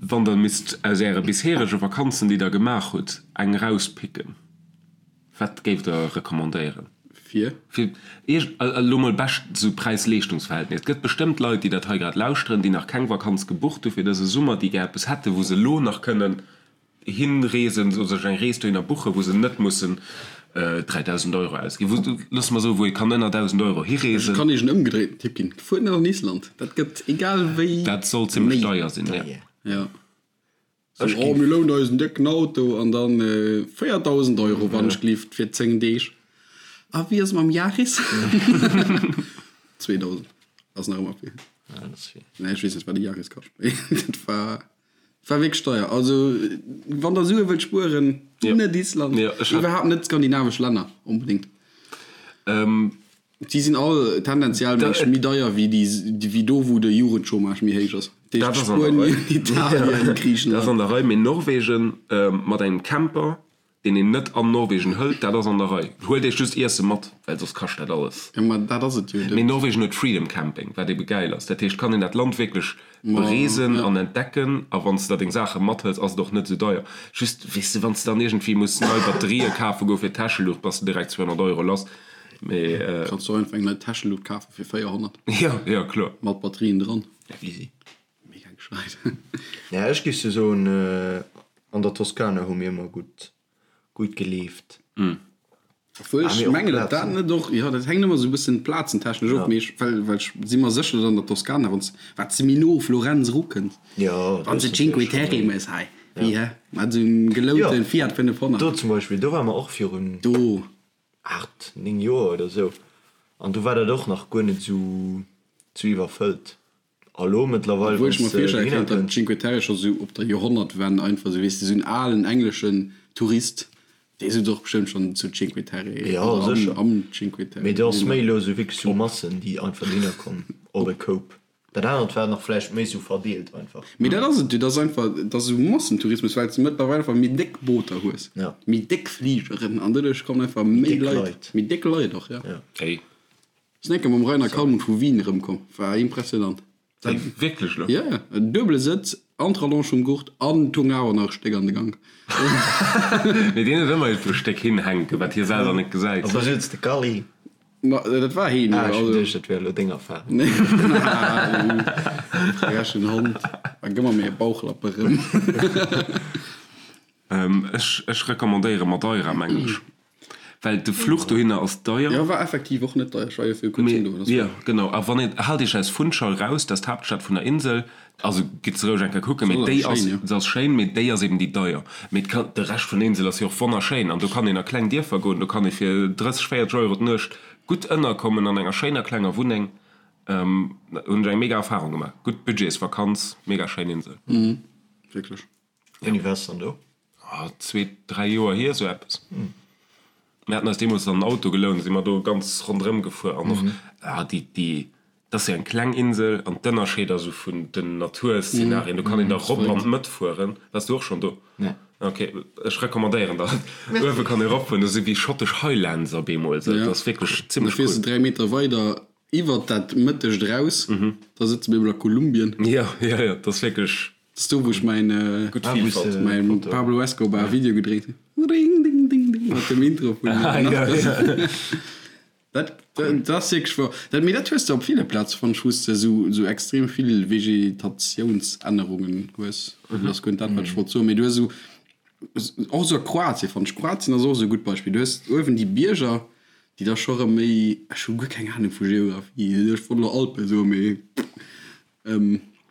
wann der misst aus äre bisherege Vakanzen, déi der gemaach hutt, eng rauspicken, wat géift der recommandéieren? Fir? Fir Iech elo mol bescht esou Präis-Leeschtungsverhältnis. Et gëtt bestëmmt Leit, déi dat hei grad lauschteren, déi nach keng Vakanz gebucht hu fir dëse Summer, déi gär eppes hätten, wou se elo nach kënnen hinreesen oder sech eng Rees dohinner buchen, wou se net mussen 3.000 Euro ausginn, wou, loosse mer soen, wou ee kann ënner 1.000 Euro hireesen. Ech kann Iech en ëmgedréiten Tipp ginn, Fuert net an Island, dat gëtt egal wéi Dat soll zimmlech deier sinn, jo. Jo. Sou, oh, mir lounen eis en décken Auto an dann 4.000 Euro, wann ech gelift, fir 10 Deeg. A wéi ass et mam Yaris? 2.000 ass nach ëmmer vill. Nee, ech weess net, wat e Yaris kascht, mee dat war. War wierklech deier. Also wann der Sue wëllt spueren, net Island, iwwerhaapt net d'skandinavesch Länner onbedéngt. Si sinn all tendenziell mengen ech méi deier wéi déi, wéi do wou de Jugendchômage méi héich ass. Dat heescht Spuenien, Italien, Griichenland. Dat ass an der Rei, mee Norwegen mat engem Camper deen een net an Norwegen hëlt, dat ass an der Rei. Huelt iech just Iesse mat, well soss kascht dat alles. Jo, ma dat ass et jo. Mee Norwegen huet Freedom Camping, wat ebe gäil ass. Dat heescht, kann een dat Land wierklech bereesen an entdecken. A wann s de da deng Saache mathëls, ass et och net esou deier. Just, weess de, wann s de dann iergendwéi muss nei Batterië kafe goe fir d'Täscheluucht, bass de direkt 200 Euro lass. Mee. Kanns de och einfach eng nei Täscheluucht kafe fir 400. Jo, jo, kloer. Mat Batterien dran. Easy. Mega gescheit. Ja, ech géif sou soen, an der Toskana hu mir ëmmer gutt, gutt gelieft. Obwuel ech mengen, datt dat net och, jo, dat hänkt ëmmer sou e bëssen plazentechnesch of, mee ech, well, well ech si mer sécher, datt an der Toskana, wann s, wat s de méi no u Florenz erukënns, wann s de Cinque Terre méchs, hei, wéi, hä, mat esou engem gelounte Fiat 500. Do zum Beispill, do ware mer och virun. Do. 8, 9 Joer oder sou, an do war dat och nach guer net sou, sou iwwerfëllt. A lo mëttlerweil, Obwuel ech mer virstelle kéint, datt d'Cinque Terre scho sou op der Joerhonnertwenn einfach sou, weess de, sou en alen engleschen Tourist, dee sot och bestëmmt schonn zu Cinque Terre Jo, oder am, sécher. am Cinque Terre. Mee do ass méi elo sou wierklech sou Massen, déi einfach dohinner kommen op e Koup. Dat anert war nach vläicht méi sou verdeelt einfach. Mee dat ass et jo, dat ass einfach, dat ass esou Massentourismus, well s de mëttlerweil einfach méi déck Booter hues, méi déck Fligeren an doduerch kommen einfach méi Leit, méi déck Leit och, jo. Hey. Sinn eng Kéier mam Rainer Kalmund vu Wien erëmkomm, war impressionant. Hey, wierklech elo? Jo, jo, en duebele Sëtz an d'Rallonge vum Gurt an tung awer nach e Stéck an de Gank. Mee deen huet ëmmer iergendwou e Stéck hinhänken, wat hie selwer net gesäit. A wou sutz de Kally? Ma dat war heen jo. Ah, ech hunn geduecht, dat wär elo deng Affär. Nee, frechen Hond, da gëmm mer mir e Bauchlapp erëm. Ech, ech recommandéiere Madeira, mengen ech. Well de Fluch dohinner ass deier. Jo, war effektiv och net deier. Ech war jo viru kuerzem do. Mee, jo, genau. A wann een, haalt iech aus Funchal raus, dat ass d'Haaptstad vun der Insel. Also gitt se roueg eng Kéier kucken, mee déi ass, se ass schéin, mee déi ass eben déi deier. Mee et kann, de Rescht vun der Insel ass jo och wonnerschéin an do kann een a kleng Dierfer goen, do kann ee fir 30, 40 Euro d'Nuecht gutt ënnerkommen an enger schéiner klenger Wunneng. Hunn ech eng mega Erfarung gemaach. Gutt Budgetsvakanz, mega schéin Insel. Wierklech. Wéini waars de dann do? Zwee, dräi Joer hier, esou eppes. Mir haten eis deemools dann en Auto gelount, si mer do ganz ronderëm gefuer an och, ah, déi, déi, dat ass jo eng kleng Insel an d'Ënnerscheeder esou vun den Naturszenarien, do kann een da rop an d'Mëtt fueren. Waars du och schonn do? Nee. Ok, ech recommandéieren der et. Uewe kann ee ropfueren, do si wéi schottesch Highlands op eemol, esou, dat ass wierklech zimmlech cool. Da fiers de 3 Meter weider iwwert dat Mëttegt eraus, da sëtze mir emol a Kolumbien. Jo, jo, jo, dat ass wierklech. Dat ass do wou ech mäin mäin Pablo Escobar Video gedréit hunn. Ding ding ding ding mat dem Intro vun Narcos. Dat dat ass wierklech wouer. Dat mee dat hues de op ville Plaze fonnt ech wou s de esou esou extrem vill Vegetatiounsännerungen hues. Dat ass guer net dat wat ech wollt soen, mee du hues esou och esou a Kroatien fonnt ech. Kroatien ass och esou e gutt Beispill. Du hues uewen déi Bierger déi da scho rëm méi, ech hu guer keng Anung vu Geografie, ech wollt elo Alpen soen, mee.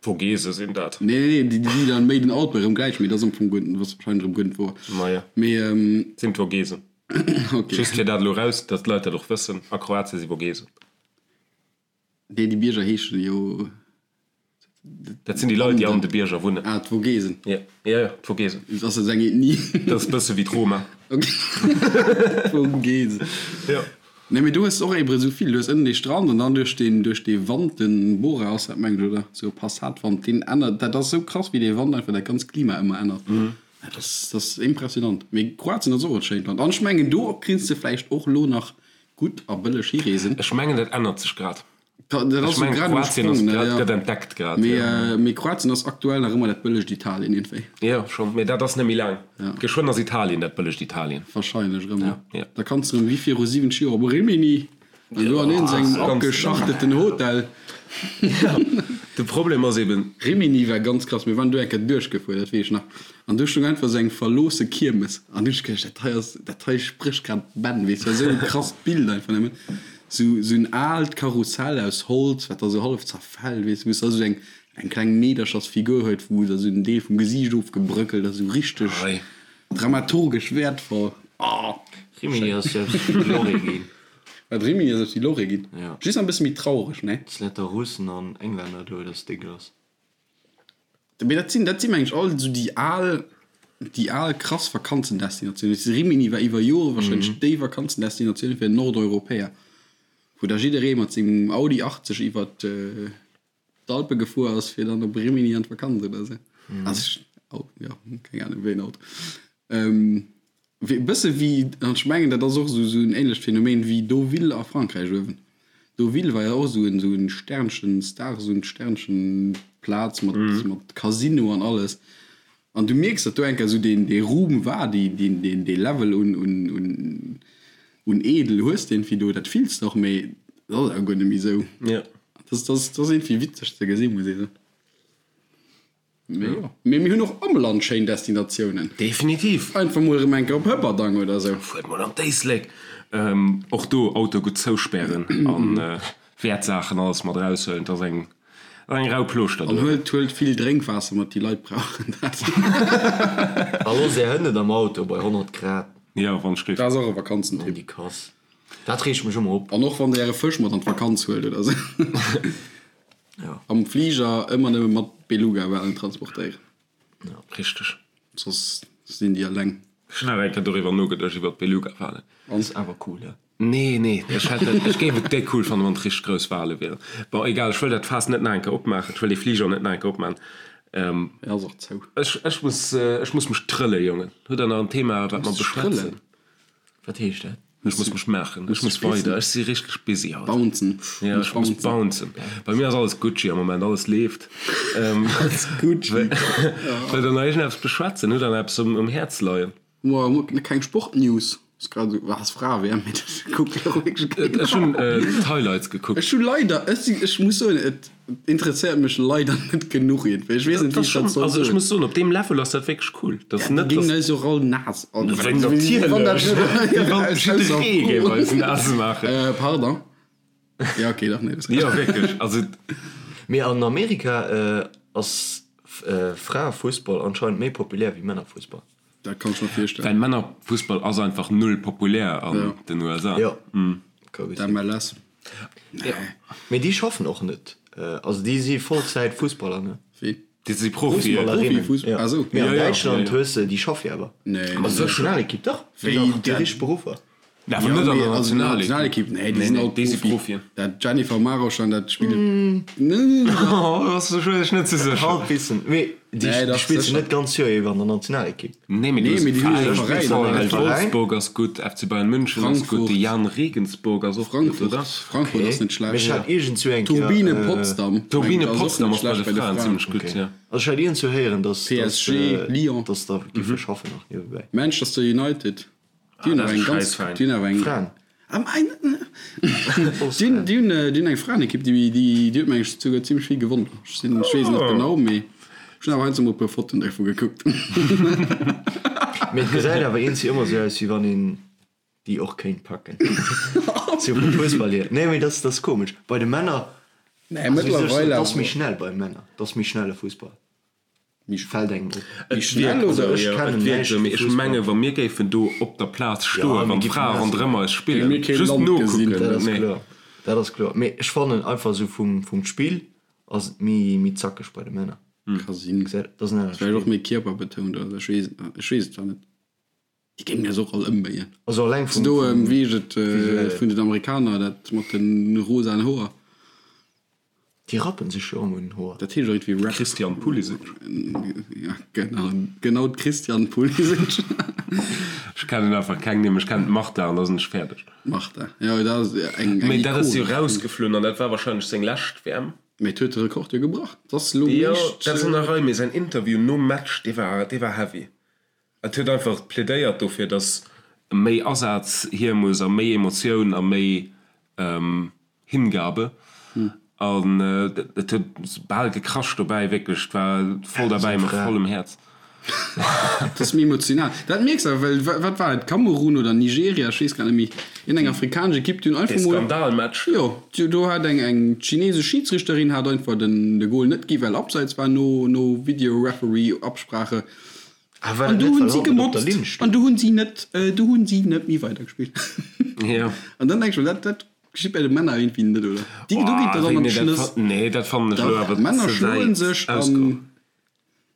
Vogese sinn dat. Nee, nee, nee, déi déi dann méi den Alpen erëm gläich, mee dat ass am Fong guer, ass wahrscheinlech erëm guer net wouer. Maja. Mee, Sinn d'Vogesen. Ok. Just fir dat elo raus, datt d'Leit dat och wëssen, a Kroatien si Vogesen. Nee, déi Bierger heeschen jo. Dat sinn déi Leit, déi an de Bierger wunnen. Ah, d'Vogesen. Ja, ja, ja, d'Vogesen. Dat ass eng Ethnie. Dat ass e bësse wéi d'Roma. Ok. D'Vogesen. Jo. Nee, mee do hues de och ebre sou vill. Du hues ënnen dee Strand an dann duerch deen, duerch dee Wand, den Bora ass dat mengen ech, oder? Sou e Passatwand, deen ännert, dat ass sou krass wéi dee Wand einfach dat ganzt Klima ëmmer ännert. Dat ass, dat ass impressionant. Mee Kroatien ass och e schéint Land an ech mengen do kriss de vläicht och lo nach gutt a bëlleg hireesen. Ech mengen dat ännert sech grad. Dat Ech ass esou mengen grad um Kroatien ass Sprong, ne? grad, Ja. gëtt entdeckt grad, Mee, jo. mee Kroatien ass aktuell nach ëmmer dat bëllegt Italien iergendwéi. Jo, schonn, mee dat ass net méi laang. Ja. Geschwënn ass Italien dat bëllegt Italien. Wahrscheinlech erëm, Ja, ja. Da kanns de erëm wéi viru 70 Joer op Rimini an do an iergend engem abgeschachteten Hotel. De Problem ass eben. Rimini war ganz krass, mir waren do eng Kéier duerchgefuer, dat weess ech nach, an do stoung einfach esou eng verloosse Kiermes an du hunn ech geduecht, dat hei ass, dat hei sprécht grad Bänn, weess, war esou e krasst Bild einfach nëmmen, esou esou en aalt Karussell aus Holz, wat da esou hallef zerfält, weess, wou s da esou eng eng kleng Meederchersfigur huet, wou da esou en Deel vum Gesiicht ofgebröckelt ass, esou richteg dramaturgesch wäertvoll, oh. Rimini ass jo eppes wéi Lorry ginn. Wat Rimini ass eppes wéi Lorry ginn. Ja. Just nach e bësse méi traureg, ne? Dass lauter Russen an Englänner do, dass déck ass. Mee dat sinn, dat si meng ech all esou déi al, déi al krass Vakanzendestinatiounen. Weess de, Rimini war iwwer Jore wahrscheinlech déi Vakanzendestinatioun fir Nordeuropäer, wou da jidderee mat sengem Audi 80 iwwer d'Alpe gefuer ass, fir dann op Rimini an d'Vakanz oder esou. Also ech, oh, jo, keng Ahnung, wéi en Auto. E bësse wéi, an ech mengen, dat ass och esou esou en ähnlecht Phänomen wéi Deauville a Frankräich uewen. Deauville war jo och esou en esou en Sternchen, Stars und Sternchen Plaz mat mat Casino an alles. An du mierks, datt do eng Kéier esou deen dee Ruhm war, déi deen deen dee Level un un un un Edel hues de iergendwéi do, dat fills de och, mee dat ass awer guer net méi esou. Dat ass dat ass dat ass iergendwéi witzeg ze gesinn, muss ee soen. Mee jo. Mee mir hunn och am Land schéin Destinatiounen. Definitiv. Einfach mol erëm eng Kéier op Hëpperdang oder esou. Fuert mol an d'Éislek. Och do Auto gutt zouspären an Wäertsaachen alles mat eraushuelen. Et ass eng eng rau Plooschter An do. huelt huelt vill Drénkwaasser mat, déi Leit brauchen dat. A loosst är Hënn net am Auto bei 100 Grad. Jo, wann ech géif. Dat ass och e Vakanzentipp. An déi Kass. Dat reegt mech ëmmer op. An och wann der äre Fësch mat an d'Vakanz huelt oder esou. Ja. Am Fliger ëmmer nëmme mat Beluga-Walen transportéieren. Ja. Richteg. Soss sinn déi eleng. Ech hunn awer eng Kéier doriwwer nogeduecht, iwwer d'Beluga-Walen. Ass awer cool, he? Nee, nee, ech hätt et, ech géif et déck cool fannen, wann et richteg grouss Wale wieren. Bon, egal, ech wëll dat Faass net nach eng Kéier opmaachen, ech wëll dee Fliger net nach eng Kéier opmaachen. E ass och zou. Ech, ech muss, ech muss mech trëlle, Jongen. Hutt der nach en Thema, wat mer beschwätzen? Wat heescht dat? Ech muss mech maachen, ech muss weider, ech si richteg busy haut. Bouncen. Ja, ech muss bouncen. Bei mir ass alles Gucci am Moment, alles leeft. Alles Gucci. Wëllt der nach iergendeppes beschwätzen? Hutt der nach eppes um Häerz leien? Moa, keng Sportnews. Ass grad esou, ass Fra-WM, mee dat kuckt jo och wierklech keen. Ech hunn d'Highlights gekuckt. Ech hu leider, ech si, ech muss soen, et interesséiert mech leider net genuch iergendwéi. Ech weess net, wéi ech dat soll Also ech soen. muss soen, op deem Level ass dat wierklech cool. Dat ass Ja, déi net, géingen dass. eis och all naass. Wéi natierlech! Wéi wann jidderee géif eis naass maachen. Äh, pardon. Ja, okay, dach, nee, dat ass Jo, wierklech, also. Mee an Amerika ass Fraefussball anscheinend méi populär wéi Männerfussball. Dat kann ech mer virstellen. Well Männerfussball ass einfach null populär an den USA. Jo, ka gutt sinn. D'MLS. Nee. Mee déi schaffen och net. Also déi si Vollzäit Fussballer, ne? Wéi? Déi si Profien. Fussballerinnen. Profifuss-, Ja. ah sou. Mee an Ja, ja, Däitschland ja, ja. hues de, déi schaffe jo awer. Nee. An der Nationalekipp, dach. Wéi Déi dat? richteg Beruffer. Nee, awer net an der Nationalekipp. Nationalekipp, nee, déi Nee, sinn nee, all déi si Profi. Profien. Dat Dzsenifer Marozsán, dat spillt. Nee, Oh, ass ech ech net sou sécher. Halbwissen. Mee déi Nee, dach, spillt sécher. net ganz Joer iwwer an der Nationalekipp. Nee, mee du Nee, hues mee déi hunn Veräin, e Veräin. VfL Veräin. Wolfsburg ass gutt, FC Bayern München ass gutt, Frankfurt. de Jahn Regensburg ass och gutt, Frankfurt, oder? Frankfurt ass net Mee schlecht. ech hat iergendzwou eng Kéier. Turbine Potsdam. Turbine mengen ech, ass och Potsdam net ass bei schlecht de Fraen zimmlech gutt, Okay. ja. Also ech hat iergendzwou héieren, dass, dass, PSG, Lyon. dass der giffe schaffen nach niewebäi. Manchester United. Déi hunn Ah, awer dat eng ass ganz, Schäissveräin. déi hunn awer eng. Fraen. Ah, mein, déi hunn, déi hunn, déi hunn eng Fraenekipp, déi, déi, déi huet meng ech souguer zimmlech vill gewonnen. Ech sinn, ech weess et net genau, mee ech hunn awer heiansdo mol e puer Fotoen dervu gekuckt. Mee et gesäit awer eenzi ëmmer sou aus, wéi wann een déi och kéint packen. Sou vum Fussball hier. Nee, mee dat ass komesch. Bei de Männer, Nee, also wéi soll ech soen, mëttlerweil et ass méi awer. schnell bei Männer. Et ass méi schnelle Fussball. Méi Fällt engem op. Et schnell wierkt oder? esou, Ech jo, kennen et wierkt näischt esou, mee vu ech Fussball. menge wa mir géifen do op der Plaz stoen, Ja, mir wann géifen d'Frae nass ronderëm maachen. eis spillen, Mir keen just Land gesinn. nokucken, Dat ass nee. kloer, dat ass kloer. Mee ech fannen einfach esou vum, vum Spill ass et méi, méi zackeg bei de Männer. Ka sinn. Gesäit, dat ass en anert Vläicht och Spill. méi kierperbetount oder ech weess, ech weess et zwar net. Déi géingen eis och all ëmbéien. Also alleng vum, Do, vum wéi heescht et, visuellen. vun den Amerikaner, dat mat de rosaen Hoer. Déi rappen sech jo ëmmer un den Hoer. Dat heescht och iergendwéi Rap. Christian Pulisic. Ja, genau, genau d'Christian Pulisic. Ech kennen einfach keng Nimm. Ech kennen d'Marta an da sinn ech fäerdeg. Marta, jo dat ass eng Mee dat ass jo rausgeflunn an dat war wahrscheinlech seng lescht WM. Mee et huet de Rekord jo gebrach. Et ass elo Jo, dat ass an der Rei, mee säin Interview nom Match, dee war, dee war heavy. Et huet einfach plädéiert dofir, datt méi Asaz hier muss a méi Emotioun a méi Hingabe. An et huet bal gekrasch dobäi, wierklech, et war voll derbäi mat vollem Häerz. Dat ass méi emotional. Dat mierks awer, well wat war et, Kamerun oder Nigeria, ech weess grad net méi, iergendeng afrikanesch Ekipp, déi hunn einfach mol. Dee Skandalmatch. Jo, do hat eng eng chinesesch Schidsrichterin hat einfach den de Gol net gi well Abseits war no no Video-Referee-Absprache. An du hunn si gemotzt an du hunn si net du hunn si net méi weidergespillt. Jo. An dann denk ech mer, dat dat geschitt bei de Männer iergendwéi net, oder? Déi do geet dat an an d'Schnëss. Nee, dat fannen ech elo awer ze wäit. Männer schloen sech an.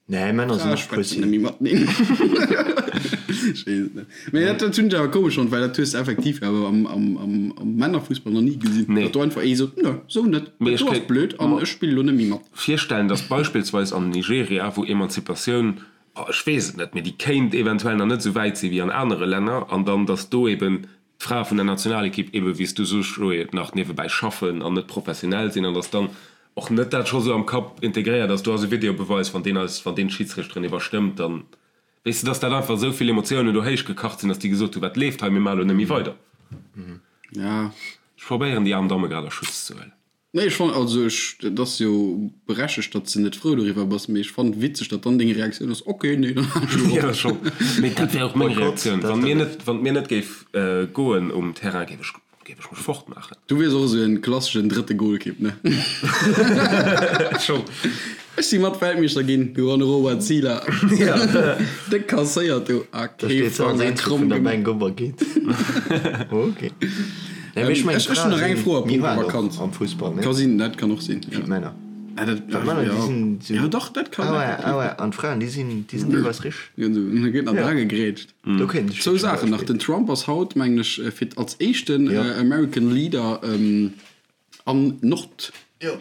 Nee, Männer sinn och Pussy. Méi mateneen. Ech weess et net. Mee dat dat hunn ech awer komesch fonnt, well dat hues de effektiv awer am am am am Männerfussball nach ni gesinn. Nee. Datt do einfach ee sot, Nö, sou net, dat do ass blöd an ech spille lo net méi mat. Virstellen, datt beispillsweis an Nigeria, wou Emanzipatioun, oh ech weess et net, mee déi kéint eventuell nach net esou wäit si wéi an anere Länner, an dann datt do eben d'Frae vun der Nationalekipp ebe wéi s du soos Joé, nach niewebäi schaffen an net professionell sinn an datt dann och net dat scho sou am Kapp integréiert ass, do ass e Videobeweis, wann deen eis, wann deen d'Schidsrichteren iwwerstëmmt, dann weess de, datt dat einfach esou vill Emotiounen do héichgekacht sinn, datt déi gesot hunn, wat leeft hei, mir maache lo net méi weider. Ja. Ech probéieren déi aarm Damme grad a Schutz ze huelen. Nee, ech fannen, also ech, et ass jo berechtegt, datt s de net frou doriwwer bass, mee ech fannen et witzeg, datt dann deng Reaktioun ass, ok, nee, dann halen ech elo op. Jo, schonn. Mee dat wär och meng Reaktioun. Wann mir net, wann et mir net géif goen um Terrain, géif ech, géif ech mech fortmaachen. Du wiers och esou en klasseschen drëtte Golkipp, ne? Schonn. Ech si mat Weltmeeschter ginn, du an Robert Zieler. Déck kasséiert do a Da kee steet se als Fanger Eenzege kromm vun der gemaach. Bänk op a geet. Ok. Nee, mee ech mengen, Ech ech hunn d'Frae nach eng sinn Fro a méi punkto haart och Vakanz. am Fussball, ne? Ka sinn, dat kann och sinn, Wéi jo. d'Männer. Ah, dat, Well d'Männer, déi jo. sinn sou. Jo, dach, dat kann Ah ouais, effektiv. ah ouais. An d'Fraen, déi sinn, déi sinn deelweis richteg. Jo, do gëtt nach Ja. dra gegrätscht. Do kéint ech Zwou zum Saachen nach, Beispill. Den Trump ass haut, mengen ech, fir als éischten Jo. American Leader an Nord. Jo.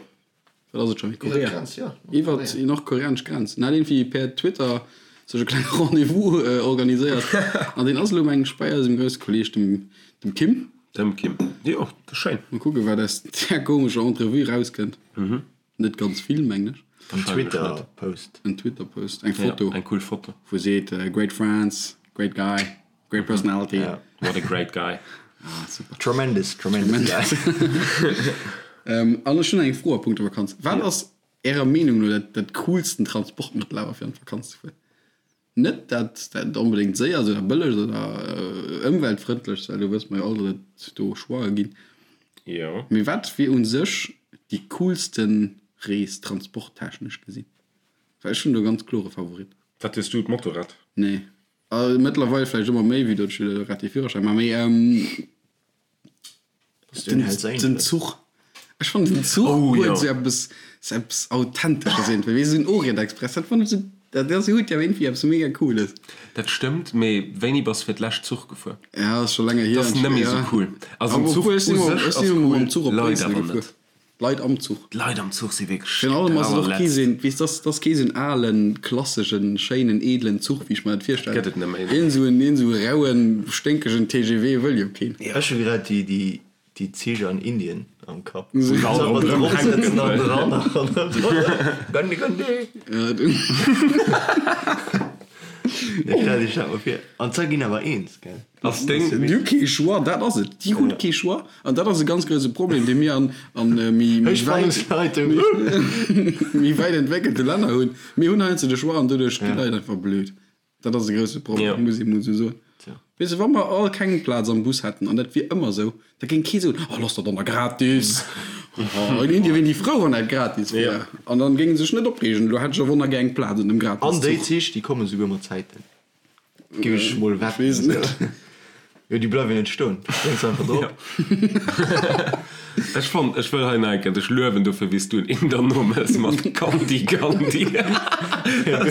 Wat ass et scho? Korea. Iwwer déi nordkoreanesch Grenz. En hat iergendwéi per Twitter sech e klenge Rendez-vous organiséiert. An deen ass elo, mengen ech, bei eisem grousse Kolleeg, dem, dem Kim. Dem Kim. Jo, dat ass schéin. Mol kucken, wat aus där komescher Entrevue erauskënnt. Net ganz vill, mengen ech. En Twitter-Post. En Twitter-Post, eng Foto. Ja, eng cool Foto. Wou e seet, Great friends, great guy. Great personality. Ja. What a great guy. Ah, super. Tremendous, tremendous guy. ähm, an ech hunn eng Fro a punkto Vakanz. Wat ja. ass Ärer Meenung no dat, dat coolsten Transportmëttel awer fir an d'Vakanz ze fueren? Net dat, dat onbedéngt séier ass oder bëlleg oder äh, ëmweltfrëndlech, well do wësse mer jo all, datt et do Choixë ginn. Jo. Mee wat wier u sech déi coolsten Rees transporttechnesch gesinn? Well ech hunn do e ganz klore Favorit. Wat hues du, d'Motorrad? Nee. Also mëttlerweil vläicht ëmmer méi, wéi datt ech grad dee Führerschäin maachen, mee den, den Zuch. Ech fannen den Zuch Oh, huet jo. esou eppes, esou eppes Authentesches iergendwéi, wéi esou en Orient-Express, dat fannen ech esou, dat ass, huet jo iergendwéi eppes mega Cooles. Dat stëmmt, mee wéini bass fir d'lescht Zuch gefuer? Ja, ass scho länger hier. Dat ass net méi esou Ja. cool. Also den Awer Zuch obwuel, ech u sinn emol, sech ech ass sinn emol cool, mam Zuch op Leit Bréissel awer gefuer. net. D'Leit am Zuch. D'Leit am Zuch si wierklech Virun allem ass et och kee allerletzt. seen, weess, dass dass kee seen alen, klasseschen, schéinen, edlen Zuch, wéi ech mer dat virstellen. Gëtt et net méi. Een esou en, een esou rauen, sténkegen TGV wëll jo keen. Ech hu grad déi, déi, déi Zich an Indien am Kapp. Wou se all ronderëm hänken. An dran an dran. Gandhi, Gandhi! Ja, du. Nee, stell dech dat mol vir. An zwar ginn awer eens, gell? Ass deng. Déi hu kee Choix, dat ass et. Déi hunn kee Choix. An dat ass e ganz grouse Problem, dee mir an, an méi, méi wäit, méi wäit entwéckelte Länner hunn. Mir hunn heiansdo de Choix an doduerch ginn d'Leit einfach blöd. Dat ass e grouse Problem, muss ee mol esou soen. Weess de, wa mer all keng Plaz am Bus hätten, an dat wier ëmmer esou, da géing kee soen, Oh, looss dat dann da gratis. Oh, in Indien wieren déi frou, wann dat gratis wier. An dann géinge se sech net opreegen, elo hätt ech a Wonner gär eng Plaz an dem An déi Gratis-Zuch. Zich, déi komme souguer mat Zäiten. Géif ech mol Ech weess wetten. et net. Jo, déi bleiwen net stoen. Du spréngs einfach drop. Ech fonnt, ech wëll hei nach eng Kéier dech luewen dofir, wéi s du en Inder nomëss mat Gandhi, Gandhi. Dat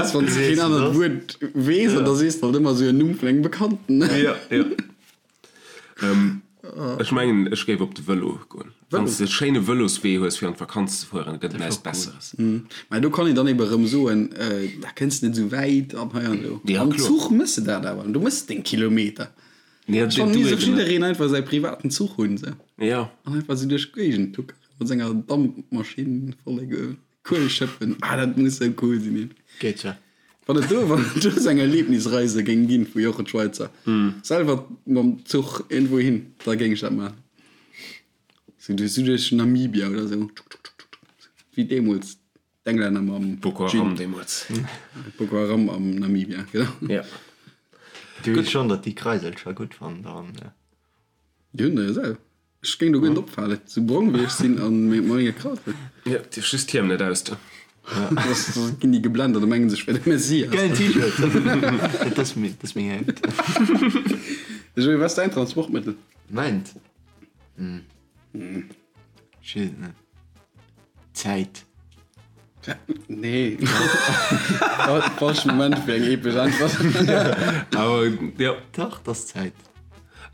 ass, wann s de keen anert Wuert weess an da sees de halt ëmmer esou en Numm vun engem Bekannten. Jo, jo. Ech mengen, ech géif op de Vëlo goen. Wann s de e schéine Vëloswee hues fir an d'Vakanz ze fueren, gëtt et näischt Besseres. Mä do kann een dann ebe rëm soen, da kënns de net esou wäit an hei an do. Am Zuch mëss de dat awer, du mëss deng Kilometer. Ech fannen, misst och jiddereen einfach säi privaten Zuch hunn esou an einfach esou duerch d'Géigend tuckeren mat senger Dampmaschinn voller Kuel schëppen. Ah, dat muss esou cool sinn. Geet jo. Wann et do, wann et do esou eng Erlebnisreise géing ginn vu Jochen Schweizer, selwer mam Zuch iergendwou hin, da géing ech dat maachen. Sou duerch, sou duerch Namibia oder sou, tschuk tschuk tschuk tschuk, wéi deemools d'Englänner mam Boko Haram deemools. Boko Haram am Namibia, genau. Ja. Du weess schonn, datt déi Kreiselcher gutt fannen dann, ne? Déi hunn der jo selwer. Ech géing do guer net opfalen, sou brong wéi ech sinn an mat menge Krawatten. Jo, dierf just d'Hiem net ausdoen. Soss ginn déi geblennt an da mengen se ech wär de Messias. Gäilen T-Shirt! Dat ass meng Hemd. Joé, wat ass däin Transportmëttel? Mäint? Ech weess et net. Zäit. Nee. Falsche Moment fir eng epesch Äntwert. Awer jo. Dach, 't ass Zäit.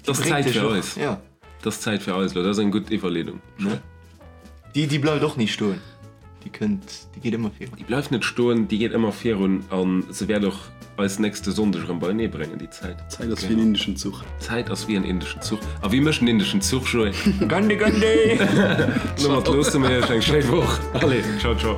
't ass Zäit fir eis. Ja. 't ass Zäit fir eis elo. Dat ass eng gutt Iwwerleedung. Ne? Déi, déi bleift och ni stoen. Déi kënnt, déi geet ëmmer virun. Déi bleift net stoen, déi geet ëmmer virun a se wäert och eis nächste Sonndeg erëm beienee bréngen, déi Zäit. D'Zäit ass wéi en indeschen Zuch. D'Zäit ass wéi en indeschen Zuch. A wéi mécht en indeschen Zuch, Joé? Gandhi, Gandhi! Domat loosse mir iech eng schéi Woch. Allez, ciao, ciao.